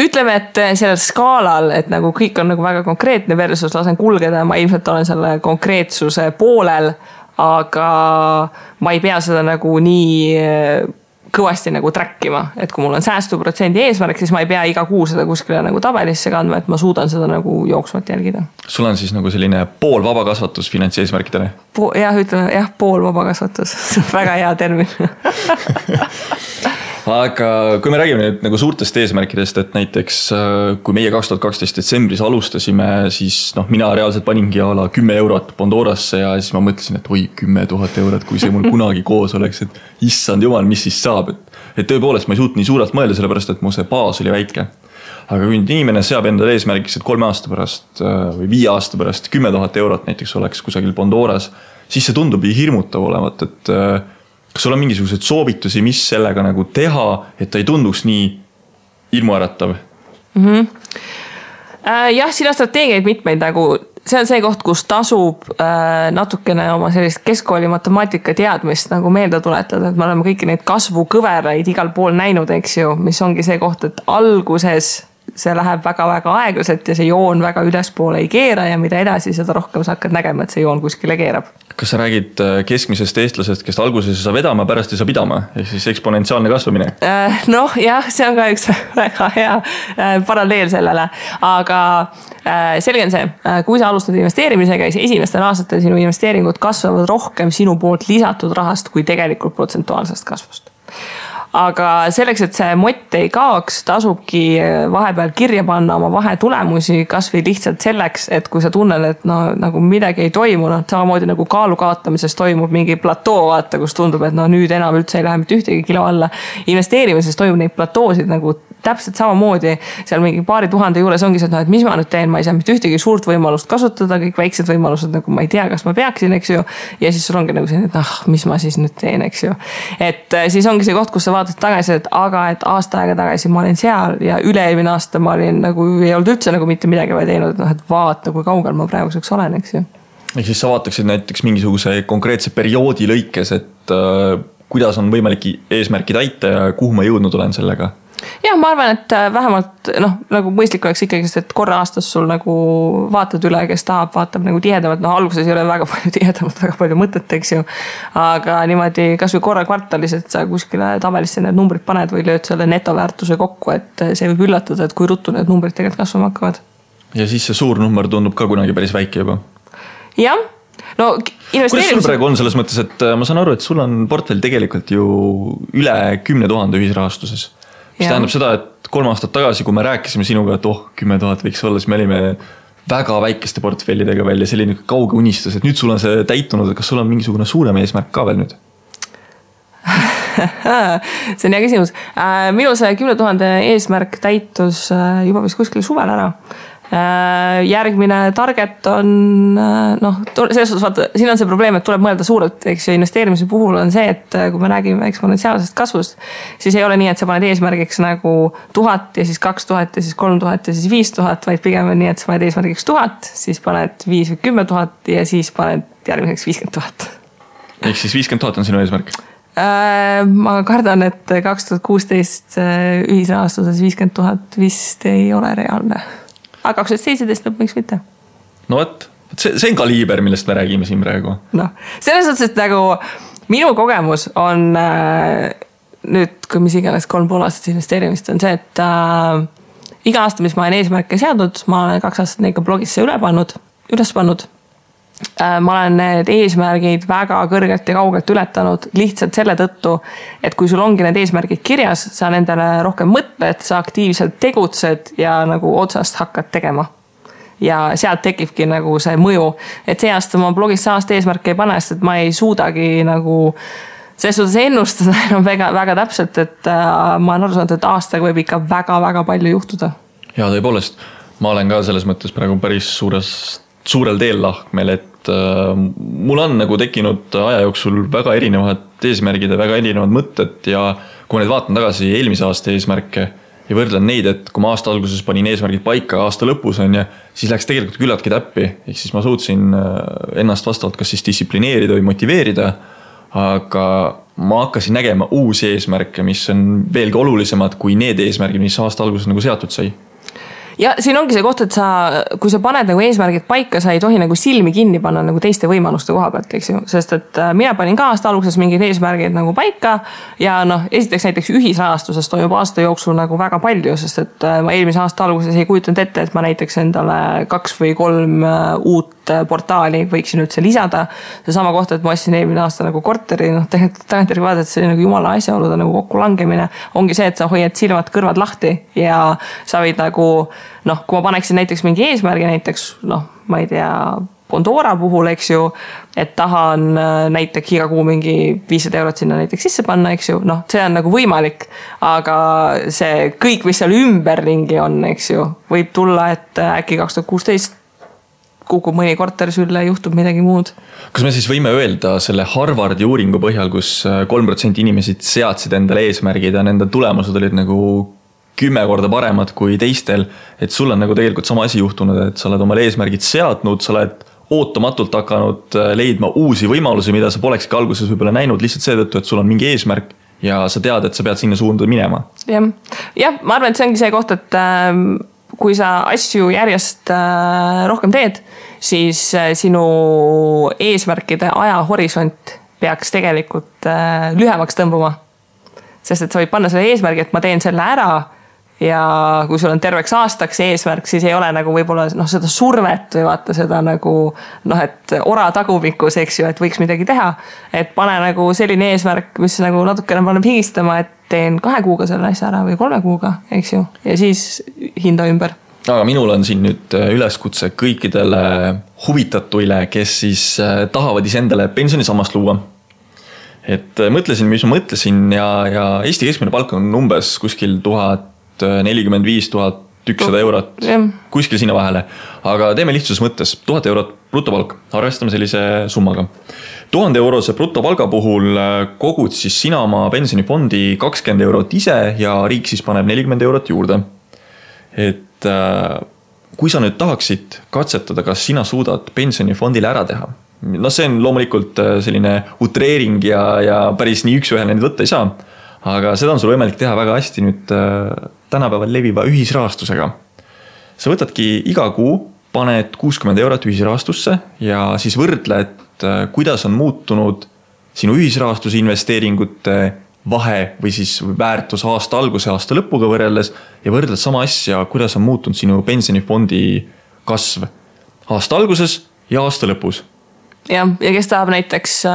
Ütleme, et sellel skaalal, et nagu kõik on nagu väga konkreetne versus lasen kulgeda, ma ilmselt olen selle konkreetsuse poolel, aga ma ei pea seda nagu nii kõvasti nagu trackima, et kui mul on säästuprotsendi eesmärk, siis ma ei pea iga kuu seda kuskile nagu tabelisse kandma, et ma suudan seda nagu jooksvalt jälgida. Sul on siis nagu selline pool vabakasvatus finantseesmärkidele? Ütleme, pool vabakasvatus. Väga hea termin. aga kui me räägime nüüd nagu suurtest eesmärkidest, et näiteks kui meie 2012 detsembris alustasime, siis mina reaalselt paningi ala 10 eurot Pandorasse ja siis ma mõtlesin, et oi 10 000 eurot, kui see mul kunagi koos oleks, et issand jumal, mis siis saab, et tõepoolest ma ei suutnud nii suurelt mõelda, sellepärast et mu see baas oli väike. Aga kui inimene seab endale eesmärgiks, et 3 aasta pärast või 5 aasta pärast 10 000 eurot näiteks oleks kusagil Pandoras, siis see tundub hirmutav olevat, et kas sul on mingisugused soovitusi, mis sellega nagu teha, et ta ei tunduks nii ilmuäratav? Jah, siin on strateegiaid mitmeid, nagu see on see koht, kus tasub natukene oma sellist keskkooli matemaatika teadmist nagu meelde tuletada, et me oleme kõiki neid kasvukõveraid igal pool näinud, eks ju, mis ongi see koht, et alguses see läheb väga-väga aeglaselt ja see joon väga ülespoole ei keera ja mida edasi, seda rohkem sa hakkad nägema, et see joon kuskile keerab. Kas sa räägid keskmisest eestlasest, kes alguses ei saa vedama, pärast ei saa pidama, ehk siis eksponentsiaalne kasvamine? Noh, jah, see on ka üks väga hea paralleel sellele, aga selge on see, kui sa alustad investeerimisega, siis esimestel aastatel sinu investeeringud kasvavad rohkem sinu poolt lisatud rahast kui tegelikult protsentuaalsest kasvust. Aga selleks, et see mott ei kaoks, tasubki vahepeal kirja panna oma vahetulemusi, kas või lihtsalt selleks, et kui sa tunned, et nagu midagi ei toimu, samamoodi nagu kaalu kaotamises toimub mingi platoo, vaata, kus tundub, et nüüd enam üldse ei lähe mitte ühtegi kilo alla. Investeerimises toimub neid platoosid nagu täpselt samamoodi, seal mingi paari tuhande juures ongi see, et mis ma nüüd teen, ma ei saa mitte ühtegi suurt võimalust kasutada, kõik väiksed võimalused, nagu ma ei tea, kas ma peaksin, eks ju, ja siis sul ongi nagu see, et mis ma siis nüüd teen, eks ju. Et siis ongi see koht, kus sa vaatad tagasi, et aga et aasta aega tagasi ma olin seal ja üle-eelmine aasta ma olin nagu, ei olnud üldse nagu mitte midagi vaid teinud, et vaata, kui kaugel ma praeguseks olen, eks ju. Ehk siis sa vaataksid näiteks mingisuguse konkreetse perioodi lõikes, et kuidas on võimalik eesmärki täita ja kuhu ma jõudnud olen sellega? Jah, ma arvan, et vähemalt nagu mõistlik oleks ikkagi, et korra aastas sul nagu vaatad üle, kes tahab, vaatab nagu tihedamalt, alguses ei ole väga palju tihedamalt, väga palju mõtet, eks ju, aga niimoodi kas või korra kvartalis, et sa kuskile tabelisse need numbrid paned või lööd selle netoväärtuse kokku, et see võib üllatada, et kui ruttu need numbrid tegelikult kasvama hakkavad. Ja siis see suur number tundub ka kunagi päris väike juba. Jah, no kuidas sul praegu on selles mõttes, et ma saan aru, et sul on portfell tegelikult ju üle 10 000 ühisrahastuses. Mis tähendab seda, et 3 aastat tagasi, kui me rääkisime sinuga, et 10 000 võiks olla, siis me olime väga väikeste portfellidega veel ja selline kauge unistus, et nüüd sul on see täitunud, et kas sul on mingisugune suurem eesmärk ka veel nüüd? See on hea küsimus. Minu see 10 000 eesmärk täitus juba vist kuskil suvel ära. Järgmine target on selles suhtes vaata, siin on see probleem, et tuleb mõelda suurelt, eks ju, investeerimise puhul on see, et kui me räägime eksponentsiaalsest kasvust, siis ei ole nii, et sa paned eesmärgiks nagu 1000 ja siis 2000 ja siis 3000 ja siis 5000, vaid pigem on nii, et sa paned eesmärgiks 1000, siis paned 5 või 10 000 ja siis paned järgmiseks 50 000. Ehk siis 50 000 on sinu eesmärk? Ma kardan, et 2016 ühisrahastuses 50 000 vist ei ole reaalne. Aga 2017 lõpuks mitte. No võt, see on kaliiber, millest me räägime siin praegu. Selles suhtes, et nagu minu kogemus on nüüd, kui mis iganes 3,5 aastat investeerimist on see, et iga aasta, mis ma olen eesmärke seadnud, ma olen 2 aastat neid ka blogisse üles pannud. Ma olen need eesmärgid väga kõrgelt ja kaugelt ületanud lihtsalt selle tõttu, et kui sul ongi need eesmärgid kirjas, sa nendele rohkem mõtled, sa aktiivselt tegutsed ja nagu otsast hakkad tegema. Ja sealt tekibki nagu see mõju, et see aasta ma blogis aasta eesmärke ei pane, sest et ma ei suudagi nagu selles suhtes ennustada enam väga täpselt, et ma olen aru saanud, et aastaga võib ikka väga palju juhtuda. Ja tõepoolest, ma olen ka selles mõttes praegu päris suurel teel lahkmel, et mul on nagu tekkinud aja jooksul väga erinevad eesmärgid ja väga erinevad mõtted ja kui ma nüüd vaatan tagasi eelmise aasta eesmärke ja võrdlen neid, et kui ma aasta alguses panin eesmärgid paika aasta lõpus on ja siis läks tegelikult küllaltki täppi, ehk siis ma suutsin ennast vastavalt kas siis distsiplineerida või motiveerida, aga ma hakkasin nägema uusi eesmärke, mis on veelgi olulisemad kui need eesmärgid, mis aasta alguses nagu seatud sai. Ja siin ongi see koht, et kui sa paned nagu eesmärgid paika, sa ei tohi nagu silmi kinni panna nagu teiste võimaluste koha pealt, eks ju, sest et mina panin ka aasta alguses mingid eesmärgid nagu paika ja esiteks näiteks ühisrahastuses toimub aasta jooksul nagu väga palju, sest et ma eelmise aasta alguses ei kujutanud ette, et ma näiteks endale 2 või 3 uut portaali võiksin üldse lisada. See sama kohta, et ma ostsin eelmine aasta nagu korteri, tegelikult tagantjärgi vaadata, see oli nagu jumala asjaolude nagu kokku langemine. Ongi see, et sa hoiad silmad kõrvad lahti ja sa võid nagu, kui ma paneksin näiteks mingi eesmärgi, näiteks, ma ei tea, Pandora puhul, eks ju, et tahan näiteks iga kuu mingi 500 eurot sinna näiteks sisse panna, eks ju, see on nagu võimalik, aga see kõik, mis seal ümberringi on, eks ju, võib tulla, et äkki 2016 kukub mõni korter sülle, juhtub midagi muud. Kas me siis võime öelda selle Harvardi uuringu põhjal, kus 3% inimesed seadsid endale eesmärgid ja nende tulemused olid nagu 10 korda paremad kui teistel, et sul on nagu tegelikult sama asi juhtunud, et sa oled omale eesmärgid seadnud, sa oled ootamatult hakanud leidma uusi võimalusi, mida sa polekski alguses võib-olla näinud lihtsalt seetõttu, et sul on mingi eesmärk ja sa tead, et sa pead sinna suunda minema. Jah, ma arvan, et see ongi see koht, et kui sa asju järjest rohkem teed, siis sinu eesmärkide ajahorisont peaks tegelikult lühemaks tõmbuma. Sest et sa võid panna selle eesmärgi, et ma teen selle ära ja kui sul on terveks aastaks eesmärk, siis ei ole nagu võib-olla seda survet või vaata seda nagu, et ora tagumikus, eks ju, et võiks midagi teha. Et pane nagu selline eesmärk, mis nagu natukene paneb higistama, et teen 2 kuuga selle asja ära või 3 kuuga, eks ju, ja siis hinda ümber. Aga minul on siin nüüd üleskutse kõikidele huvitatuile, kes siis tahavad isendale pensionisammast luua. Et mõtlesin, mis ma mõtlesin ja Eesti keskmine palk on umbes kuskil 1045-1100 eurot, kuskil sinna vahele. Aga teeme lihtsuses mõttes 1000 eurot brutopalk, arvestame sellise summaga. 1000 eurose brutopalga puhul kogud siis sina oma pensionifondi 20 eurot ise ja riik siis paneb 40 eurot juurde. Et kui sa nüüd tahaksid katsetada, kas sina suudad pensionifondile ära teha, see on loomulikult selline utreering ja päris nii üks-ühele neid võtta ei saa, aga seda on sul võimalik teha väga hästi nüüd tänapäeval leviva ühisrahastusega. Sa võtadki iga kuu, paned 60 eurot ühisrahastusse ja siis võrdle, et kuidas on muutunud sinu ühisrahastuse investeeringute vahe või siis väärtus aasta alguse aasta lõpuga võrreldes ja võrdled sama asja, kuidas on muutunud sinu pensionifondi kasv aasta alguses ja aasta lõpus. Ja kes tahab näiteks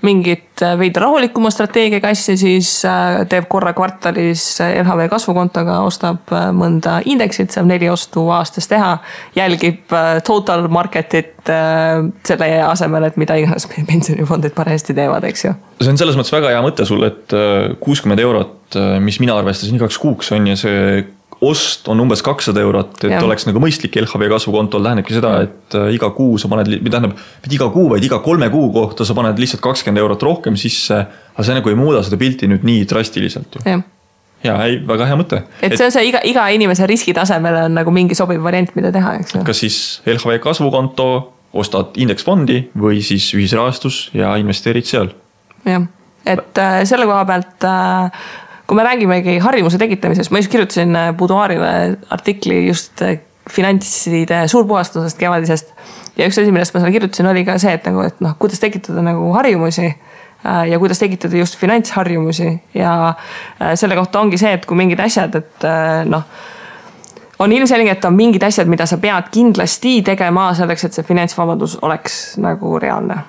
mingit veidi rahulikuma strateegiaga asja, siis teeb korra kvartalis LHV kasvukontoga, ostab mõnda indeksit, saab 4 ostu aastas teha, jälgib total marketit selle asemel, et mida iganes pensionifondid paremasti teevad, eks ju. See on selles mõttes väga hea mõte sul, et 60 eurot, mis mina arvestasin 2 kuuks on ja see ost on umbes 200 eurot, et oleks nagu mõistlik LHV kasvukontol tähendabki seda, et iga kuu sa paned, iga kuu, vaid iga 3 kuu kohta sa paned lihtsalt 20 eurot rohkem sisse, aga see nagu ei muuda seda pilti nüüd nii drastiliselt. Ja, väga hea mõte. Et see on see iga inimese riskitasemele on nagu mingi sobiv variant, mida teha, eks ju. Kas siis LHV kasvukonto, ostad indeksfondi või siis ühisrahastus ja investeerid seal? Jah, et selle koha pealt kui me räägimegi harjumuse tekitamisest, ma just kirjutasin Buduaarile artikli just finantside suurpuhastusest kevadisest ja üks asi, millest ma seal kirjutasin, oli ka see, et kuidas tekitada nagu harjumusi ja kuidas tekitada just finantsharjumusi ja selle kohta ongi see, et kui mingid asjad, et on ilmselge, et on mingid asjad, mida sa pead kindlasti tegema selleks, et see finantsvabadus oleks nagu reaalne.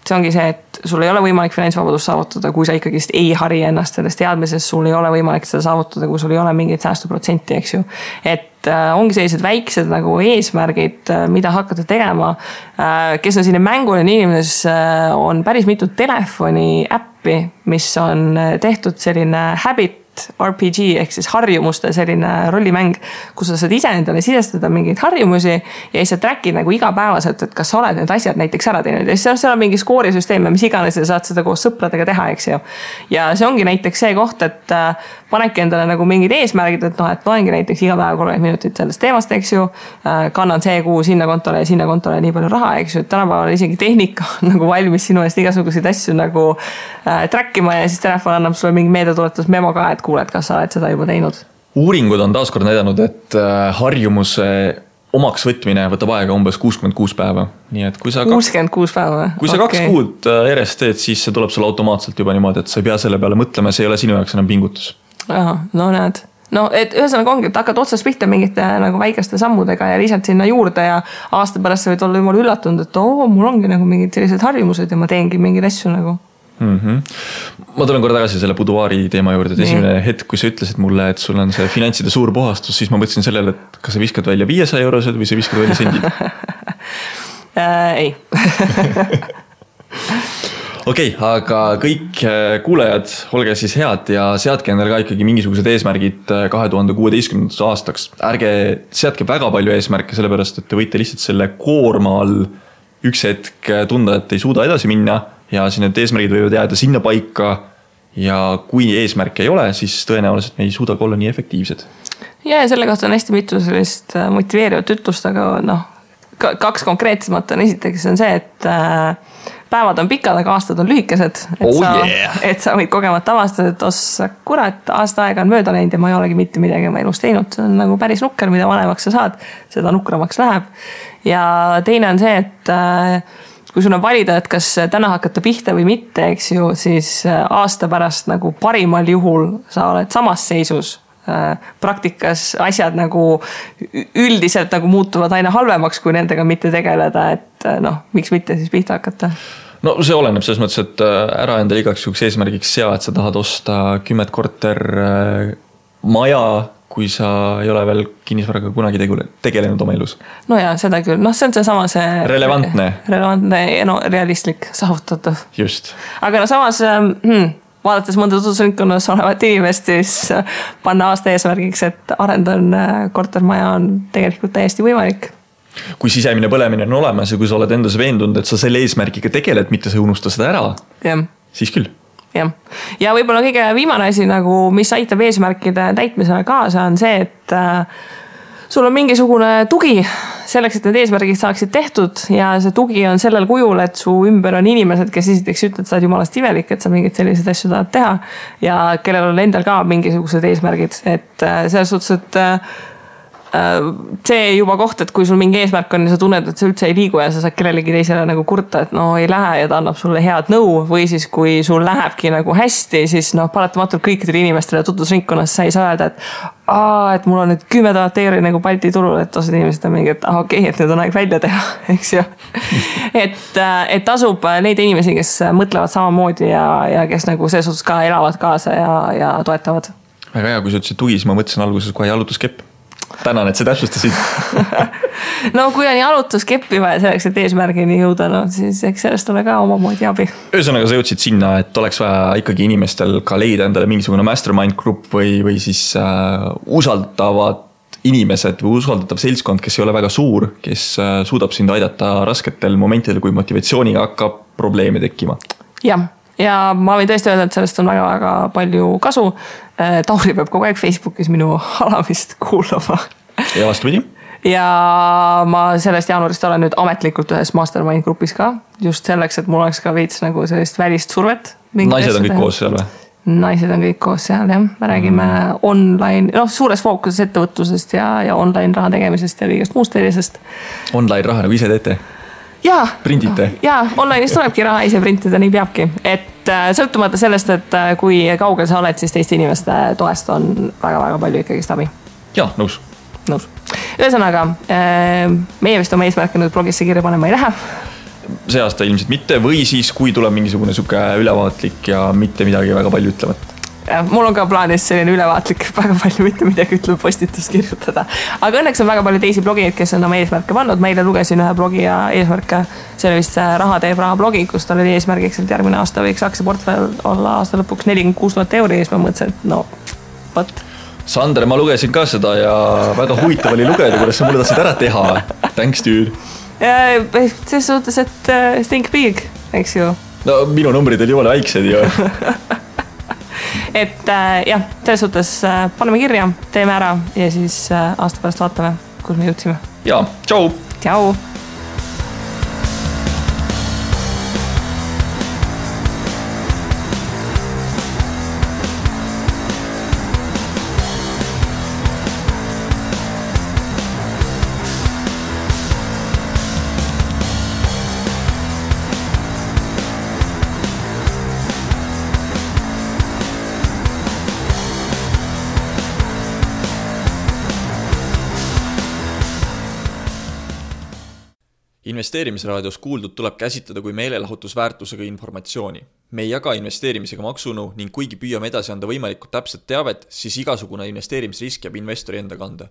See ongi see, et sul ei ole võimalik finantsvabadust saavutada, kui sa ikkagi ei hari ennast sellest teadmisest, sul ei ole võimalik seda saavutada, kui sul ei ole mingit säästuprotsenti, eks ju. Et ongi sellised väiksed nagu eesmärgid, mida hakata tegema. Kes on sinne mängule inimenes, on päris mitu telefoni äppi, mis on tehtud selline habit RPG ehk siis harjumuste selline rollimäng, kus sa saad ise endale sisestada mingeid harjumusi ja siis sa trackid nagu igapäevaselt, et kas sa oled need asjad näiteks ära teinud ja siis seal on mingi skoorisüsteem ja mis iganes ja saad seda koos sõpradega teha, eks ju. Ja see ongi näiteks see koht, et panedki endale nagu mingid eesmärgid, et loengi näiteks iga päev 30 minutit sellest teemast, eks ju, kannan see kuu sinna kontole nii palju raha, eks ju, et tänapäeval isegi tehnika on nagu valmis sinu eest igasuguseid asju nagu trackima ja siis telefon annab sulle mingi meedetuletus memo ka, et kuuled, kas sa oled seda juba teinud. Uuringud on taaskord näidanud, et harjumuse omaks võtmine võtab aega umbes 66 päeva. Nii et kui sa 66 päeva? Kui sa 2 kuud järjest teed, siis see tuleb sulle automaatselt juba niimoodi, et sa ei pea selle peale mõtlema, see ei ole sinu jaoks enam pingutus. Aha, no näed. no et ühesõnaga ongi, et hakkad otsast pihta mingite nagu väikeste sammudega ja lisad sinna juurde ja aasta pärast sa võid olla jumala üllatunud, et mul ongi nagu mingid sellised harjumused ja ma teengi mingeid asju nagu. Ma tulen korra tagasi selle buduaari teema juurde, et esimene hetk, kui sa ütlesid mulle, et sul on see finantside suur puhastus, siis ma mõtlesin sellele, et kas sa viskad välja 500 eurosed või sa viskad välja sendid? Ei. Okei, aga kõik kuulajad, olge siis head ja seadke endale ka ikkagi mingisugused eesmärgid 2016. aastaks. Ärge seadke väga palju eesmärke, sellepärast, et te võite lihtsalt selle koorma all üks hetk tunda, et ei suuda edasi minna ja siin need eesmärgid võivad jääda sinna paika ja kui eesmärke ei ole, siis tõenäoliselt me ei suuda olla nii efektiivsed. Ja selle kohta on hästi mitu sellist motiveerivat ütlust, aga kaks konkreetsemat on esiteks on see, et päevad on pikad, aga aastad on lühikesed. Et sa võid kogemata avastada, et kurat, aasta aega on mööda läinud ja ma ei olegi mitte midagi oma elus teinud. See on nagu päris nukker, mida vanemaks sa saad, seda nukramaks läheb. Ja teine on see, et kui sul on valida, et kas täna hakata pihta või mitte, eks ju, siis aasta pärast nagu parimal juhul sa oled samas seisus. Praktikas asjad nagu üldiselt nagu muutuvad aina halvemaks, kui nendega mitte tegeleda, et miks mitte siis pihta hakata? No see oleneb selles mõttes, et ära endale igaks juhuks eesmärgiks sea, et sa tahad osta 10 korter maja, kui sa ei ole veel kinnisvaraga kunagi tegelenud oma elus. No ja, seda küll. See on seesama see... Relevantne ja realistlik, saavutatav. Just. Aga samas... vaadates mõnda tutvusringkonnas olevat inimest, siis panna aasta eesmärgiks, et arendan kortermaja on tegelikult täiesti võimalik. Kui sisemine põlemine on olemas ja kui sa oled endas veendunud, et sa selle eesmärgiga tegeled, mitte sa unusta seda ära, siis küll. Ja võib-olla kõige viimane asi, nagu, mis aitab eesmärkide täitmisele kaasa, on see, et sul on mingisugune tugi selleks, et need eesmärgid saaksid tehtud ja see tugi on sellel kujul, et su ümber on inimesed, kes esiteks ütled, sa oled jumalast imelik, et sa mingid sellised asju tahad teha ja kellel on endal ka mingisugused eesmärgid, et selles suhtes, et see juba koht, et kui sul mingi eesmärk on ja sa tunned, et sa üldse ei liigu ja sa saad kellelegi teisele nagu kurta, et ei lähe ja ta annab sulle head nõu või siis kui sul lähebki nagu hästi, siis paratamatult kõikidele inimestele tutvusringkonnas sa ei saa öelda, et mul on nüüd 10 000 euri nagu Balti turul, et osad inimesed on mingi, et okei, et nüüd on aeg välja teha, eks ju. Et tasub neid inimesi, kes mõtlevad samamoodi ja kes nagu selles suhtes ka elavad kaasa ja toetavad. Väga hea, kui sa ütlesid tugi, siis ma mõtlesin alguses kohe jalutuskepp. Tänan, et sa täpsustasid. Kui on jalutuskeppi vaja selleks, et eesmärgini jõuda, siis eks sellest ole ka omamoodi abi. Ühesõnaga sa jõudsid sinna, et oleks vaja ikkagi inimestel ka leida endale mingisugune mastermind grupp või siis usaldavad inimesed või usaldatav seltskond, kes ei ole väga suur, kes suudab sind aidata rasketel momentidel, kui motivatsiooniga hakkab probleeme tekkima. Ja ma võin tõesti öelda, et sellest on väga-väga palju kasu. Tauri peab kogu aeg Facebookis minu alamist kuulama. Ja vastupidi? Ja ma sellest jaanuarist olen nüüd ametlikult ühes mastermind grupis ka. Just selleks, et mul oleks ka veits nagu sellist välist survet. Naised on kõik koos seal või? Naised on kõik koos seal, jah. Me räägime online, suures fookuses ettevõtlusest ja online raha tegemisest ja kõigest muust sellisest. Online raha nagu ise teete? Printite? Online'is tulebki raha ise printida, nii peabki. Et sõltumata sellest, et kui kaugel sa oled, siis teiste inimeste toest on väga-väga palju ikkagi abi. Nõus. Ühesõnaga, meie vist oma eesmärke nüüd blogisse kirja panema ei lähe. See aasta ilmselt mitte või siis, kui tuleb mingisugune suke ülevaatlik ja mitte midagi väga palju ütlevat. Mul on ka plaanis selline ülevaatlik väga palju mitte midagi ütleb postitust kirjutada. Aga õnneks on väga palju teisi blogijaid, kes on oma eesmärke pannud. Ma eile lugesin ühe blogija eesmärke, see oli vist Raha teeb raha blogi, kus tal oli eesmärgiks, et järgmine aasta võiks aktsiaportfell olla aasta lõpuks 46 000 euri ja siis ma mõtlesin, et võt. Sander, ma lugesin ka seda ja väga huvitav oli lugeda, kuidas sa mulle tahtsid ära teha. Thanks, dude. Selles suhtes, et think big, eks ju. Minu numbrid oli jumala väiksed ju. Et selles suhtes paneme kirja, teeme ära ja siis aasta pärast vaatame, kus me jõudsime. Tšau! Tšau! Investeerimisraadios kuuldud tuleb käsitleda kui meelelahutusväärtusega informatsiooni. Me ei jaga investeerimisega maksunu ning kuigi püüame edasi anda võimalikult täpset teavet, siis igasugune investeerimisrisk jääb investori enda kanda.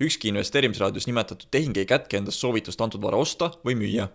Ükski investeerimisraadios nimetatud tehing ei kätke endast soovitust antud vara osta või müüa.